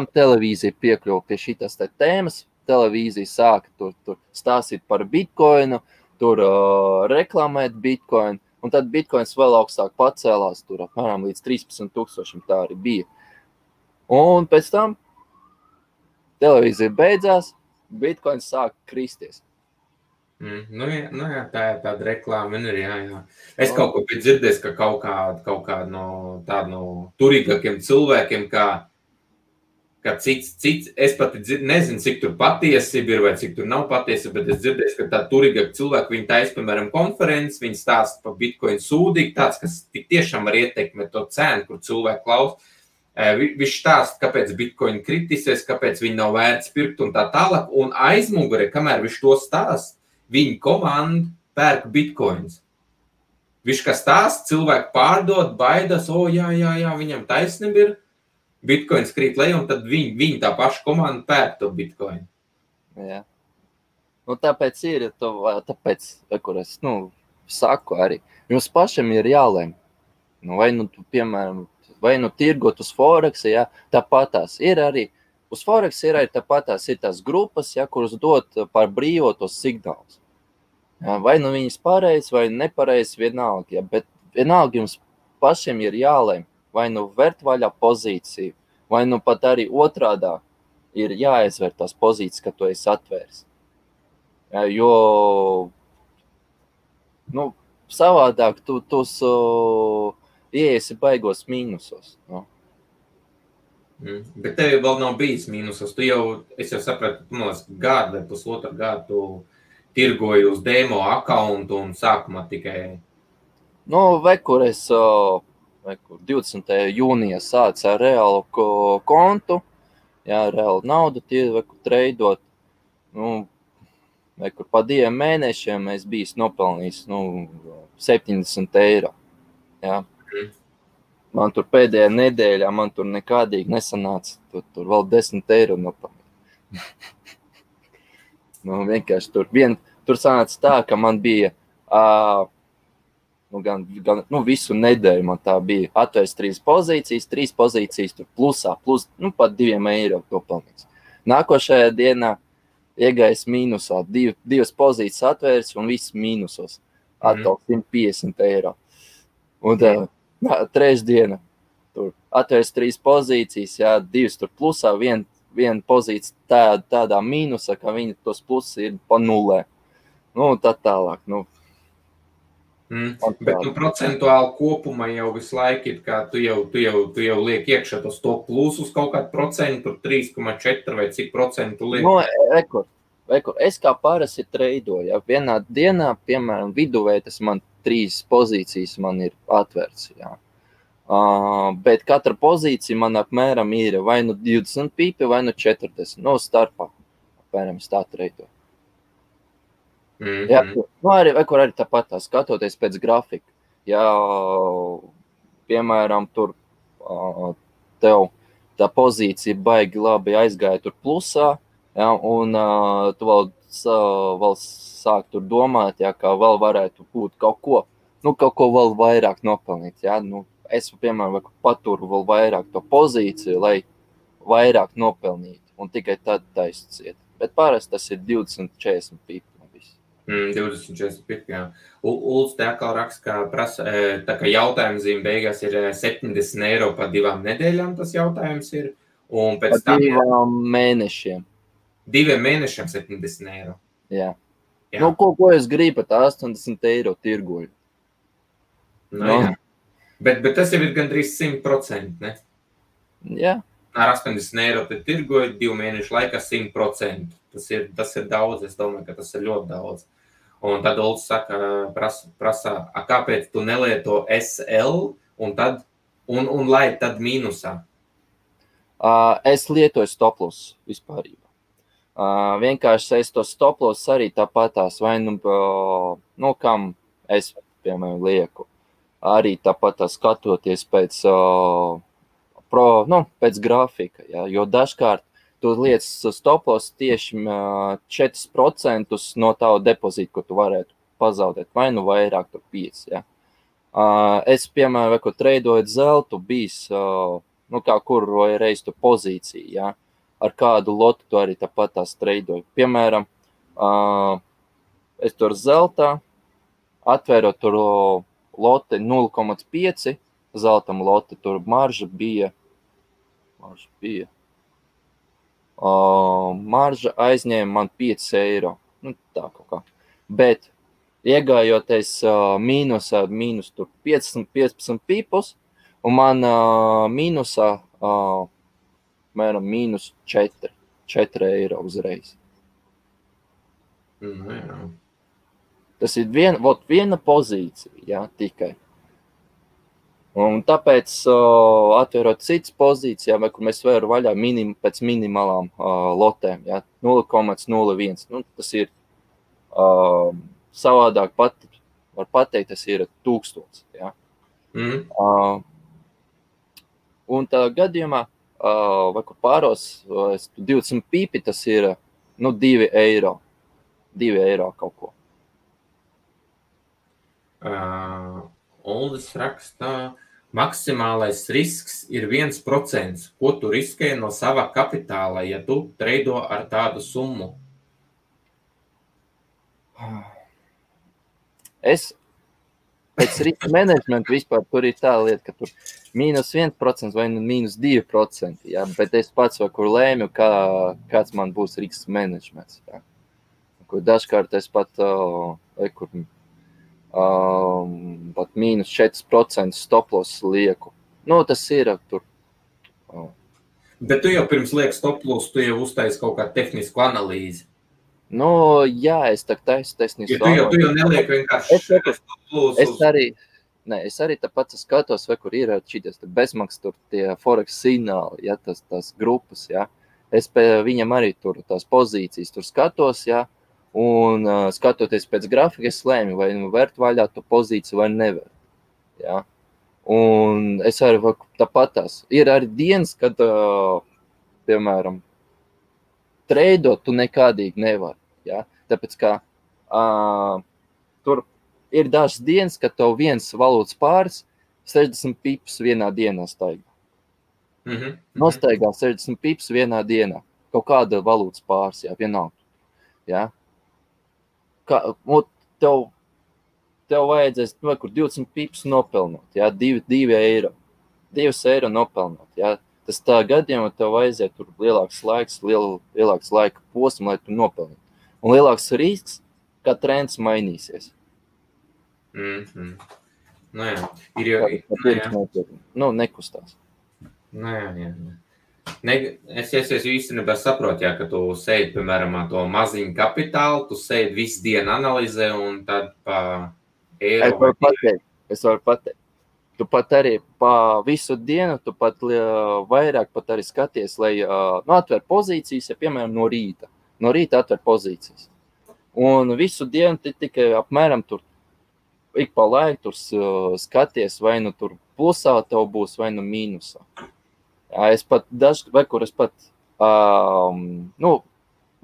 televīzija piekļuva pie šitās tēmas, televīzija sāka tur stāstīt par Bitcoinu, tur reklamēt Bitcoin, un tad Bitcoins vēl augstāk pacēlās, tur apmēram līdz 13,000 tā arī bija. Un pēc tam televīzija beidzās, Bitcoins sāk kristies. Jā, tā ir tāda reklāma, jā. Es kaut ko biju dzirdējis, ka kaut kā no turīgākiem cilvēkiem, ka cits, es pat nezinu, cik tur patiesība ir vai cik tur nav patiesība, bet es dzirdēju, ka tā turīgāk cilvēki, viņi taisa, piemēram, konferences, viņi stāsta par Bitcoin sūdīgi, tāds, kas tik tiešām var ietekmēt to cenu, kur cilvēki klaus. Viņš stāsta, kāpēc Bitcoin kritisies, kāpēc viņi nav vērts pirkt un tā tālāk, un aizmugurē, kamēr viņš to stāsta, viņa komanda pērk Bitcoins. Viņš kā stāsta, cilvēki pārdod, baidās, jā, viņam taisnība ir, Bitcoins krīt lejā, un tad viņi tā paša komanda pērk to Bitcoin. Jā. Tāpēc kur es, saku arī, jums pašam ir jālēm. Piemēram, vai tirgot uz Forex, ja, tāpatās ir arī, uz Forex ir arī tāpatās ir tās grupas, ja, kuras dod par brīvo tos signālus. Ja, vai viņas pareizi vai nepareizi vienalga, ja, bet vienalga jums pašiem ir jālēm, vai vērt vaļā pozīciju, vai pat arī otrādā ir jāizvērt tās pozīcijas, ka tu esi atvērs. Ja, jo, savādāk tu ieiesi baigos mīnusos. Bet tev vēl nav bijis mīnusos. Es jau sapratu, gadu vai pusotru gadu tirgoji uz demo accountu un sākumā tikai... Kur es 20. jūnijā sācu ar reālu kontu, jā, reālu naudu treidot, kur pa 2 mēnešiem es biju nopelnījis 70 eiro. Jā. Man tur pēdējā nedēļā, man tur nekādīgi nesanāca, tur vēl 10 eiro nopelnīt. Vienkārši tur sanāca tā, ka man bija, visu nedēļu man tā bija atvērts 3 pozīcijas, tur plusā, pat 2 eiro nopelnīts. Nākošajā dienā iegājis mīnusā, 2 pozīcijas atvērts un viss mīnusos, atkal 150 eiro. Un trešdiena, tur atvērts 3 pozīcijas, jā, 2 tur plusā, viena pozīcija tādā mīnusā, ka viņi tos plusi ir pa nulē. Tā tālāk, Bet procentuāli kopumā jau visu laiku ir, kā tu jau liek iekšā tos to plusus kaut kādu procentu, 3,4 vai cik procentu liek? Es kā parasti treidoju, ja vienā dienā, piemēram, viduvēji tas man 3 pozīcijas man ir atvērts, jā. Bet katra pozīcija man apmēram ir vai 20 pīpi, vai 40, starpā, apmēram tā treidoju. Jā, nu arī tāpat skatoties pēc grafika. Ja, piemēram, tur tev tā pozīcija baigi labi aizgāja tur plusā, ja, un tu vēl sāk tur domāt, ja, kā vēl varētu būt kaut ko vēl vairāk nopelnīt. Ja. Nu, es, piemēram, paturu vēl vairāk to pozīciju, lai vairāk nopelnītu, un tikai tad taisciet. Bet parasti tas ir 20-40 pipi. 20-40 pipi, jā. Ulds te atkal raksta, ka prasa, tā kā jautājuma zīme beigās ir 70 eiro pa 2 nedēļām tas jautājums ir. Un pēc tam 2 mēnešiem. 2 mēnešiem 70 eiro. Jā. Nu, ko es gribu, tā 80 eiro tirgoju. Jā. Bet tas jau ir gandrīz 100%, ne? Jā. Ar 80 eiro te tirgoju 2 mēnešu laikā 100%. Tas ir daudz, es domāju, ka tas ir ļoti daudz. Un tad Ulds saka, prasa, kāpēc tu nelieto SL un lai tad mīnusā? Es lietoju stoploss vispārībā. Vienkārši es to stoploss arī tāpatās, vai kam es, piemēram, lieku. Arī tāpatās skatoties pēc grafika, ja, jo dažkārt tu liec stoploss tieši 4% no tavu depozītu, ko tu varētu pazaudēt, vai nu vairāk, tur 5. Ja. Es, piemēram, ko treidojot zeltu, bijis, kā kur reiz tu pozīciju, ja, ar kādu lotu tu arī tāpat tās treidoju. Piemēram, es tur zeltā, atvērot tur lote 0,5, zeltam lote, tur marža bija. Marža aizņēma man 5 eiro. Nu, tā kaut kā. Bet iegājoties mīnus tur 15 pipus, un man mīnusā mēram mīnus 4 eiro uzreiz. Jā. Tas ir viena pozīcija, jā, tikai. Un tāpēc, atvērot citas pozīcijām, kur mēs varam vaļā pēc minimālām lotēm, ja, 0,01. Nu, tas ir savādāk var pateikt, tas ir 1000. Ja. Un tā gadījumā, vai kur pāros, 20 pipi, tas ir 2 eiro. 2 eiro kaut ko. Uldis raksta, maksimālais risks ir 1%. Ko tu riskē no sava kapitāla, ja tu treido ar tādu summu? Es pēc riska menedžmenta vispār tur ir tā lieta, ka tur -1% vai -2%. Ja? Bet es pats vai kur lēmu, kāds man būs riska menedžments. Ja? Kur dažkārt es pat pat -4% stoploss lieku. Nu, tas ir tur. Bet tu jau pirms liek stoploss, tu jau uztaisi kaut kādu tehnisku analīzi. Nu, jā, es tā taisu tehnisku analīzi. Tu jau neliek vienkārši stoploss. Es arī tāpat skatos, vai kur ir šities bezmaksas tur tie forex signāli, ja, tās grupas, ja. Es pie viņam arī tur tās pozīcijas tur skatos, ja. Un skatoties pēc grafika, es lēmu, vai vērt vaļā to pozīciju vai nevērt. Ja? Un es arī tāpat tās. Ir arī dienas, kad, piemēram, treidot tu nekādīgi nevari. Ja? Tāpēc, ka tur ir dažas dienas, kad tev viens valūtas pāris 60 pipus vienā dienā staigā. Nostaigā 60 pipus vienā dienā. Kaut kāda valūtas pāris, jā, vienalga. Ja? Tev vajadzēs kur 20 pips nopelnot, ja? 2 eiro. 2 eiro nopelnot. Ja? Tas tā gadījumā tev vajadzēja tur lielāks laika posms, lai tu nopelnītu. Un lielāks risks, ka trends mainīsies. Nu jā. Nekustās. Nu jā. Es īstenībā saprotu, ja, ka tu sēdi, piemēram, to maziņu kapitālu, tu sēdi visu dienu analizē un tad pa eiro. Es varu pateikt. Tu pat arī pa visu dienu, tu pat vairāk pat arī skaties, lai atver pozīcijas, ja, piemēram, no rīta. No rīta atver pozīcijas. Un visu dienu tikai apmēram tur ik pa laiku tur skaties, vai nu tur plusā tev būs, vai nu mīnusā. Jā, es pat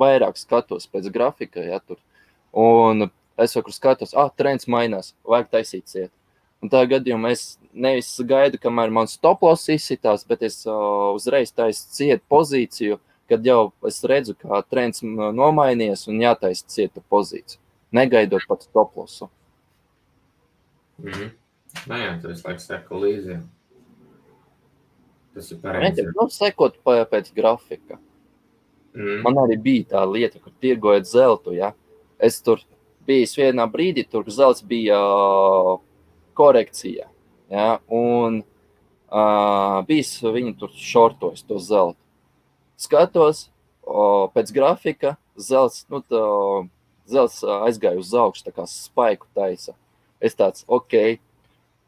vairāk skatos pēc grafika, ja tur. Un es skatos, trends mainās, vajag taisīt ciet. Un tā gadījumā es nevis gaidu, kamēr man stoploss izsitās, bet es uzreiz taisu ciet pozīciju, kad jau es redzu, kā trends nomainies un jātaisa cieta pozīciju, negaidot pat stoplossu. Jā, tur es laiku seku līdzi. Tas ir pareizi. Sekot pēc grafika. Man arī bija tā lieta, kur tirgojot zeltu, ja. Es tur biju vienā brīdī, tur zelts bija korekcijā, ja, un bijis viņi tur šortojas to zeltu. Skatos, pēc grafika zelts, zelts aizgāja uz augšu, tā kā spaiku taisa. Es tāds,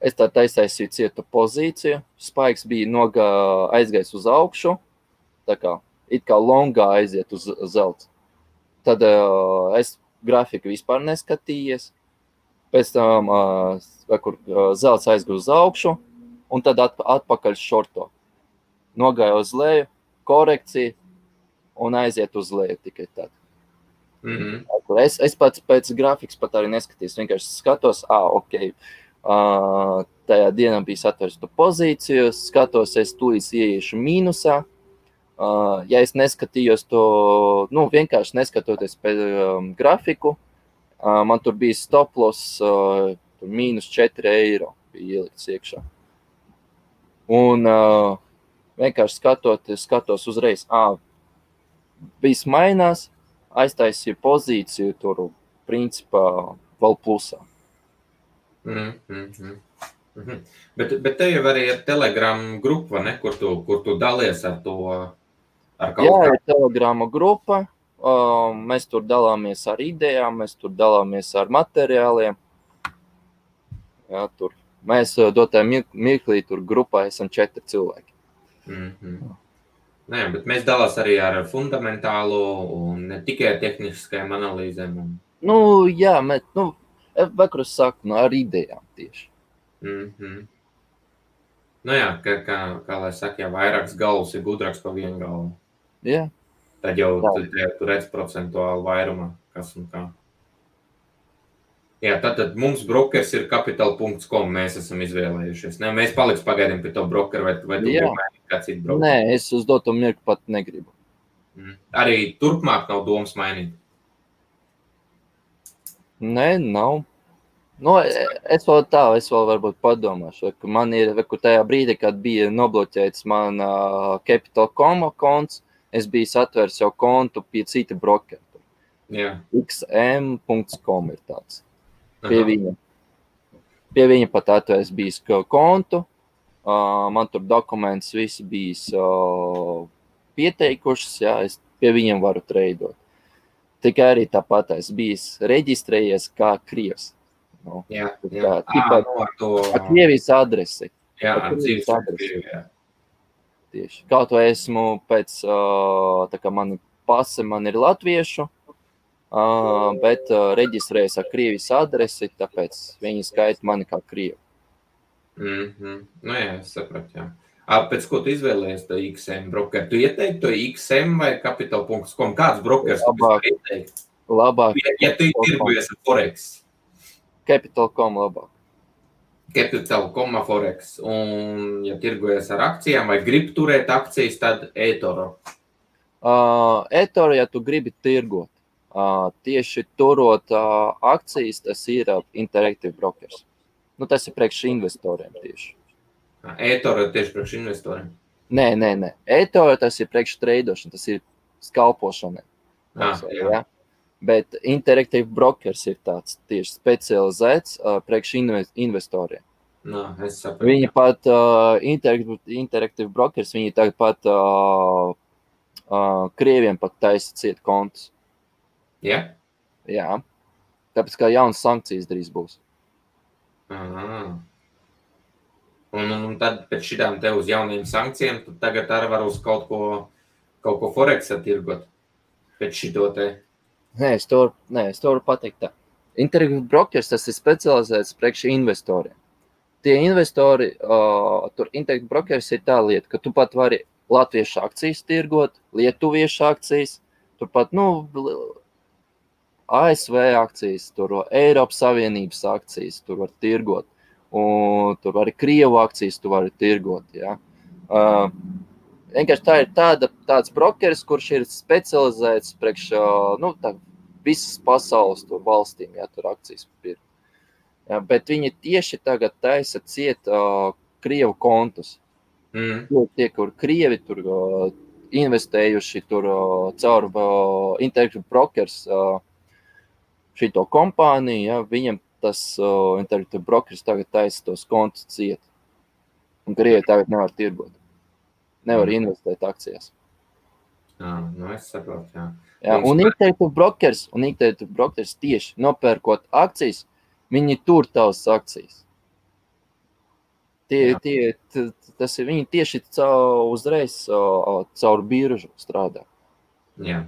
es tā taisāju cietu pozīciju, spaiks bija aizgājis uz augšu, tā kā it kā longā aiziet uz zelts. Tad es grafiku vispār neskatījies, pēc tam, kur zelts aizgāja uz augšu, un tad atpakaļ šorto. Nogāja uz leju, korekcija, un aiziet uz leju tikai tad. Es pats pēc grafikas pat arī neskatījos, vienkārši skatos, tajā dienā bija satversta pozīciju, skatos, es tūlīt ieiešu mīnusā. Ja es neskatījos to, vienkārši neskatoties pēc grafiku, man tur bija stoploss mīnus 4 eiro bija ielikts iekšā. Un vienkārši skatos uzreiz, viss mainās, aiztaisīju pozīciju tur, principā, vēl plusā. Bet te jau arī ir Telegram grupa, ne? Kur tu dalies ar to? Jā, ir Telegrama grupa. Mēs tur dalāmies ar idejām, mēs tur dalāmies ar materiāliem. Jā, tur. Mēs dotā mirklī tur grupā esam 4 cilvēki. Nē, bet mēs dalās arī ar fundamentālu un ne tikai tehniskajām analīzēm. Jā, vakarā saku, ar idejām tieši. Jā, kā lai saka, ja vairākas galvas ir gudrāks par vienu galvu. Jā. Tad jau tu redz procentuāli vairumā, kas un kā. Jā, tad mums brokers ir capital.com, mēs esam izvēlējušies. Ne, mēs paliks pagaidām pie to brokeru, vai tu gribi mainīt kā citu brokeru? Nē, es uz doto mirku pat negribu. Arī turpmāk nav domas mainīt? Nē, nav. Es vēl varbūt padomāšu, ka man ir, tajā brīdī, kad bija nobloķēts man Capital.com konts, es biju atvērs jau kontu pie cita brokera. Jā. XM.com ir tāds. Pie viņa pat atvērs bijis kontu, man tur dokuments visi bijis pieteikušas, jā, es pie viņiem varu treidot. Tikai arī tāpat es bijis reģistrējies kā krievs. Ar Krievijas adresi. Jā, ar dzīves adresi. Tieši. Kaut vai esmu pēc, tā kā mani pase man ir latviešu, bet reģistrējas ar Krievijas adresi, tāpēc viņi skaita mani kā krievu. Jā, es sapratu, jā. Pēc ko tu izvēlējies to XM brokeru? Tu ieteikti to XM vai capital.com? Kāds brokers tu ieteikti? Labāk. Ja tu tirgojies ar Forex? Capital.com labāk. Capital.com Forex. Un ja tirgojies ar akcijām vai grib turēt akcijas, tad eToro? eToro, ja tu gribi tirgot, tieši turot akcijas, tas ir Interactive Brokers. Tas ir priekš investoriem tieši. eToro tieši priekš investoriem? Nē. eToro tas ir priekš treidošana, tas ir skalpošana. Jā. Bet Interactive Brokers ir tāds tieši specializēts priekš investoriem. Es sapratu. Viņi pat, Interactive Brokers, viņi tagad pat krieviem pat taisa ciet kontus. Ja? Jā. Tāpēc kā jaunas sankcijas drīz būs. Un tad pēc šitām te uz jauniem sankcijiem, tad tagad arī var uz kaut ko Forex attirgot pēc šito te. Es to varu pateikt tā. Interactive brokers, tas ir specializēts priekš investoriem. Tie investori, tur Interactive brokers ir tā lieta, ka tu pat vari latviešu akcijas tirgot, lietuviešu akcijas, turpat, ASV akcijas, tur Eiropas Savienības akcijas, tur var tirgot, un tur arī Krievu akcijas tu vari tirgot, ja. Vienkārši tā ir tāds brokeris, kurš ir specializēts priekš, visas pasaules tur valstīm, ja, tur akcijas pirkt. Ja, bet viņi tieši tagad taisa ciet Krievu kontus. Tie, kur Krievi tur investējuši tur caur Interactive brokers šito kompāniju, ja, viņam tas Interactive brokers tagad taisa tos kontus ciet. Un Krievi tagad nevar tirgot. Nevar investēt akcijās. Es saprotu, jā. Jā, un Interactive brokers tieši nopērkot akcijas, viņi tur tavas akcijas. Viņi tieši uzreiz caur biržu strādā. Jā.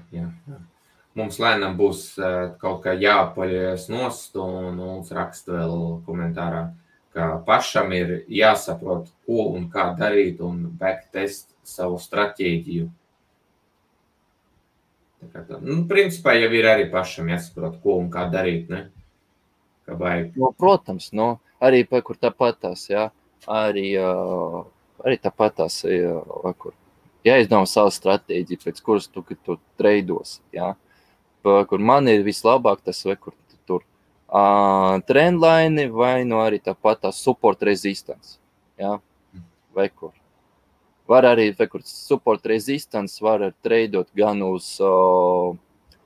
Mums lēnām būs kaut kā jāpaļojas nost, un mums raksta vēl komentārā, ka pašam ir jāsaprot, ko un kā darīt, un backtest savu stratēģiju. Principā jau ir arī pašam jāsaprot, ko un kā darīt, ne? Kā vajag. Protams, arī kur tāpatās, jā. Arī tāpatās, jāizdomā savu stratēģiju, pēc kuras tu treidos, jā. Kur man ir vislabāk tas, kur tur trendline vai arī tāpatās support resistance, jā, vai kur. Var arī, kur support resistance var treidot gan uz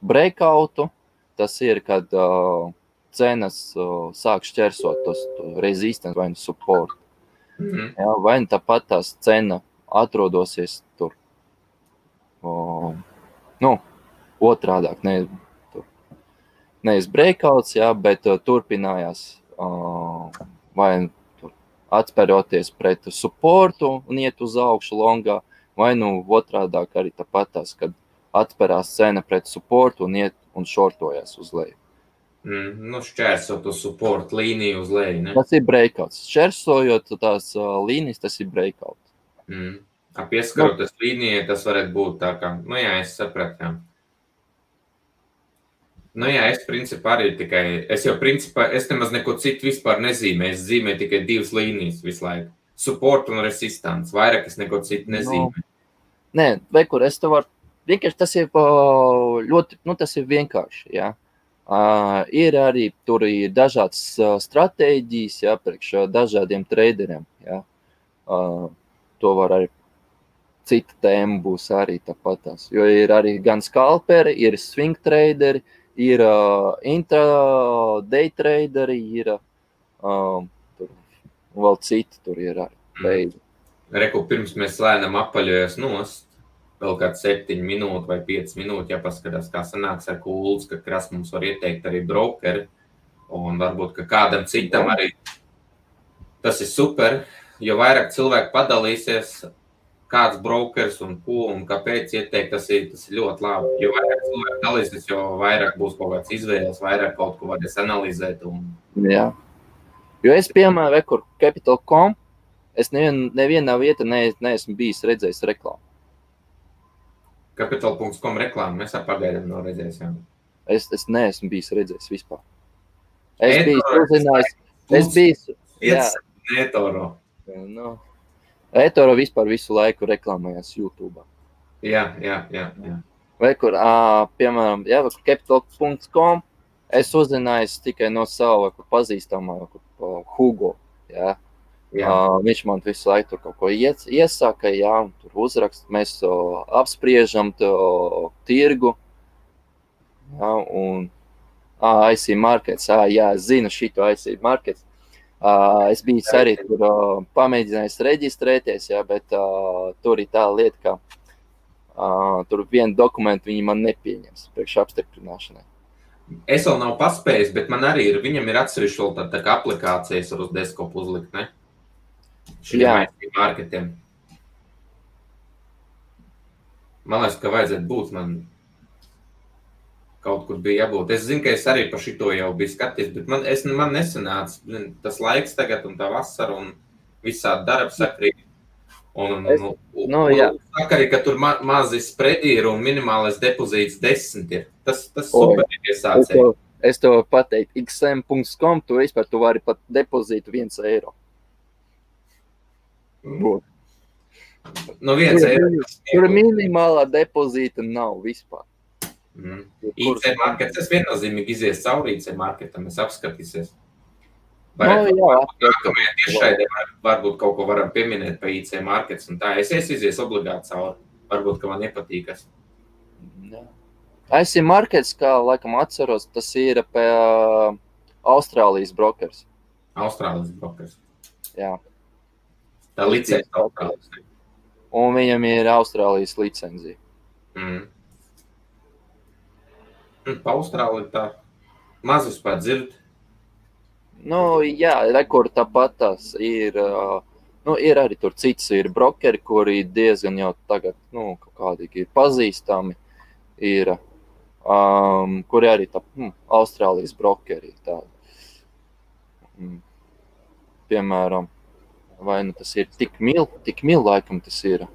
breakoutu, tas ir, kad cenas sāk šķersot tos resistance vai support. Jā, vai tāpat tās cena atrodosies tur, otrādāk, nevis breakouts, jā, bet turpinājās, vai tur atspēroties pret supportu un iet uz augšu longā, vai otrādāk arī tāpat tās, kad atspērās cena pret supportu un iet un shortojās uz leju. Šķērsot uz support līniju uz leju, ne? Tas ir breakouts. Šķērsojot tās līnijas, tas ir breakout. Pieskaroties līnijai, tas varētu būt tā kā, es sapratu, jā. Es principā arī es nemaz neko citu vispār nezīmēju. Es zīmēju tikai 2 līnijas visu laiku. Support un resistance. Vairāk es neko citu nezīmēju. Nē, vai kur es tev varu, vienkārši tas ir ļoti, tas ir vienkārši, jā. Ir arī, tur ir dažādas stratēģijas, jā, priekš dažādiem traderiem, jā. To var arī, cita tēma būs arī tāpatās, jo ir arī gan skalperi, ir swing traderi, ir intraday traderi, ir tur vēl citi, tur ir arī. Reku, pirms mēs lēnām apaļojas nost, vēl kāds 7 minūtes vai 5 minūtes, ja paskatās, kā sanāks ar Kulds, ka Kras mums var ieteikt arī brokeri, un varbūt, ka kādam citam arī tas ir super, jo vairāk cilvēku padalīsies, kāds brokers un ko un kāpēc ieteikt, tas ir ļoti labi. Jo vairāk cilvēku dalīsies, jo vairāk būs kaut kāds izvēles, vairāk kaut ko varēs analizēt. Jā. Jo es, piemēram, kur Capital.com, es nevienā vietā neesmu bijis redzējis reklāmu. Capital.com reklāmu mēs pagaidām nav redzējis. Es neesmu bijis redzējis vispār. Es biju uzzinājis. eToro. eToro vispār visu laiku reklamējās YouTube. Jā. Vai kur, piemēram, Capital.com, es uzzinājis tikai no sava pazīstamā Hugo, jā. Viņš man visu laiku tur kaut ko iesaka, jā, un tur uzrakst, mēs apspriežam tirgu, jā, un IC Markets, jā, es zinu šito IC Markets. Es biju arī tur pamēģinājis reģistrēties, jā, bet tur ir tā lieta, ka tur vienu dokumentu viņi man nepieņems priekš apstiprināšanai. Es vēl nav paspējis, bet man arī ir, viņam ir atsevišķi vēl tā kā aplikācijas ar uz desktopu uzlikt, ne? Šiem IC Marketiem. Man liekas, ka vajadzētu būt man. kaut kur bija jābūt. Es zinu, ka es arī par šito jau biju skaties, bet man nesanāca tas laiks tagad un tā vasara un visādi darba sakrīt. Un saka arī, ka tur mazi spredi ir un minimālais depozīts 10 ir. Tas super ir iesācēji. Es tev pateiktu, xm.com, tu vari pat depozītu 1 eiro. No 1 eiro. Tur minimālā depozīta nav vispār. IC markets, tas viennozīmīgi izies cauri IC marketam, es apskatīsies. Nākamajā tiešraidē varbūt kaut ko varam pieminēt pa IC markets un tā. Es izies obligāti cauri. Varbūt, ka man nepatīkas. IC markets, kā laikam atceros, tas ir pie Austrālijas brokers. Austrālijas brokers. Jā. Tā licencija Austrālijas. Un viņam ir Austrālijas licencija. Pa Austrāliju tā mazus pat dzird. Jā, rekord tāpat tās ir, ir arī tur cits ir brokeri, kuri diezgan jau tagad, kaut kādīgi ir pazīstami, ir, kuri arī tā, Austrālijas brokeri tādi. Piemēram, vai tas ir tik mil laikam tas ir.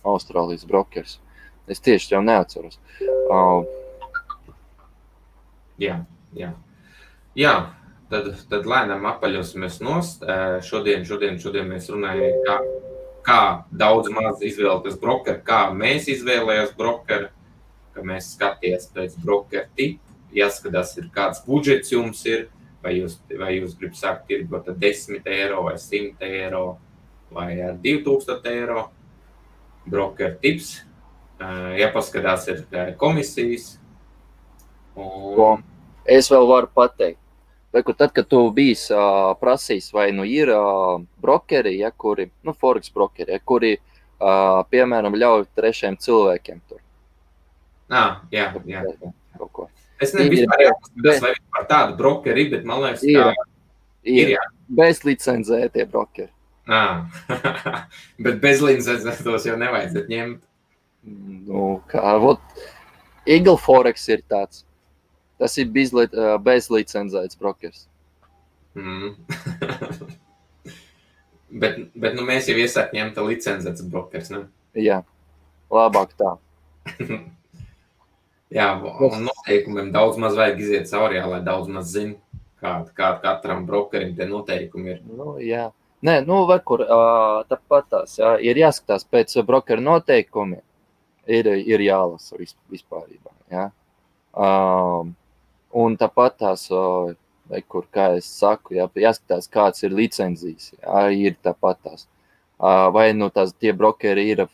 Austrālijas brokers. Es tieši jau neatceros. Jā, tad lēnām apaļosimies nost. Šodien mēs runājam, kā daudz maz izvēlēties brokeru, kā mēs izvēlējās brokeru, ka mēs skaties pēc brokeru tipu, jāskatās, kāds budžets jums ir, vai jūs gribat sākt tirgot ar 10 eiro vai 100 eiro vai ar 2000 eiro. Brokeru tips, jāpaskatās ir komisijas. Es vēl varu pateikt, tad, kad tu bijis prasījis, vai ir brokeri, kuri, forex brokeri, kuri, piemēram, ļauj trešiem cilvēkiem tur. Jā. Es nebiju vispār vai par tādu brokeri, bet man liekas, ir. Bez licencētie brokeri. Bet bez licencētos jau nevajadzētu ņemt. Eagle Forex ir tāds. Tas ir bez licencēts brokers. Bet mēs jau iesāk ņemt licencēts brokers, ne? Jā, labāk tā. Jā, un noteikumiem daudz maz vajag iziet cauri, lai daudz maz zina, kā katram brokerim tie noteikumi ir. Jā. Nē, tāpat tās, ir jāskatās pēc brokeru noteikumiem, ir jālasa vispārībā, jā. Un tāpat tās, kā es saku, jāskatās, kāds ir licencijas, ir tāpat tās. Vai tās tie brokeri ir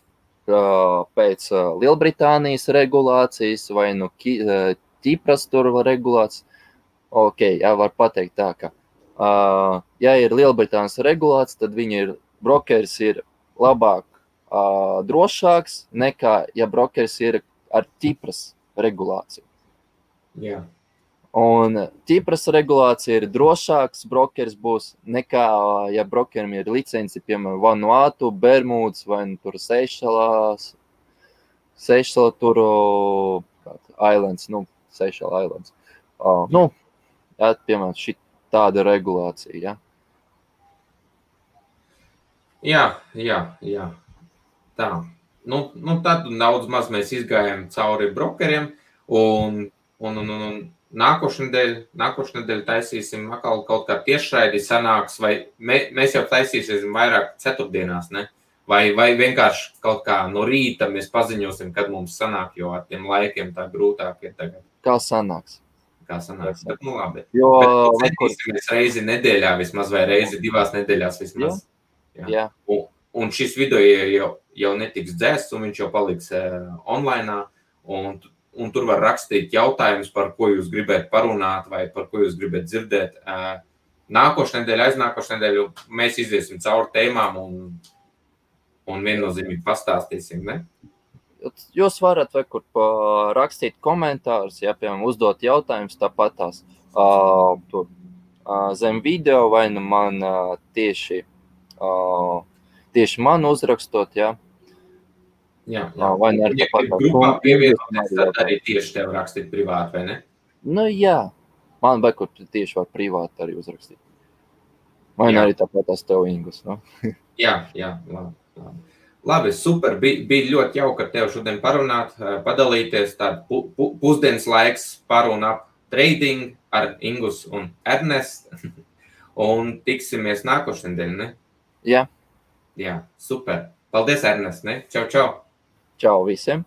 pēc Lielbritānijas regulācijas, vai Ķipras tur regulācijas. Var pateikt tā, ka ja ir Lielbritānijas regulāts, tad brokeris ir labāk drošāks nekā, ja brokeris ir ar Ķipras regulāciju. Jā. Un Ķipras regulācija ir drošāks brokeris būs nekā, ja brokerim ir licenci, piemēram, Vanuatu, Bermudas vai tur Seišela tur Islands, Seišela Islands. Piemēram, šī tāda regulācija, Jā. Tā. Tad daudz maz mēs izgājām cauri brokeriem un nākošnedēļ taisīsim atkal kaut kā tiešraidi sanāks, vai mēs jau taisīsim vairāk ceturtdienās, ne? Vai vienkārši kaut kā no rīta mēs paziņosim, kad mums sanāk, jo ar tiem laikiem tā grūtāk ir tagad. Kā sanāks, bet labi. Bet centīsimies reizi nedēļā vismaz, vai reizi 2 nedēļās vismaz. Jā. Un šis video jau netiks dzēsts, un viņš jau paliks online, un tur var rakstīt jautājumus, par ko jūs gribētu parunāt, vai par ko jūs gribētu dzirdēt. Nākošu nedēļu, aiznākošu nedēļu mēs iziesim cauri tēmām un viennozīmīgi pastāstīsim, ne? Jūs varat rakstīt komentārus, piemēram, uzdot jautājumus tāpatās zem video, vai man tieši man uzrakstot, Jā. Vai ne arī tāpat Ja grupā pievienoties, tad arī tieši tev rakstīt privāti, vai ne? Nu, jā. Man vajag, kur tieši var privāti arī uzrakstīt. Vai ne arī tāpat tās tev, Ingus, no? Jā, labi. Labi, super. Bija ļoti jauki ar tevi šodien parunāt, padalīties. Tādu pusdienas laiks paruna ap trading ar Ingus un Ernestu. Un tiksimies nākošais nedēļ, ne? Jā. Jā, super. Paldies, Ernest, ne? Čau. Čau visiem.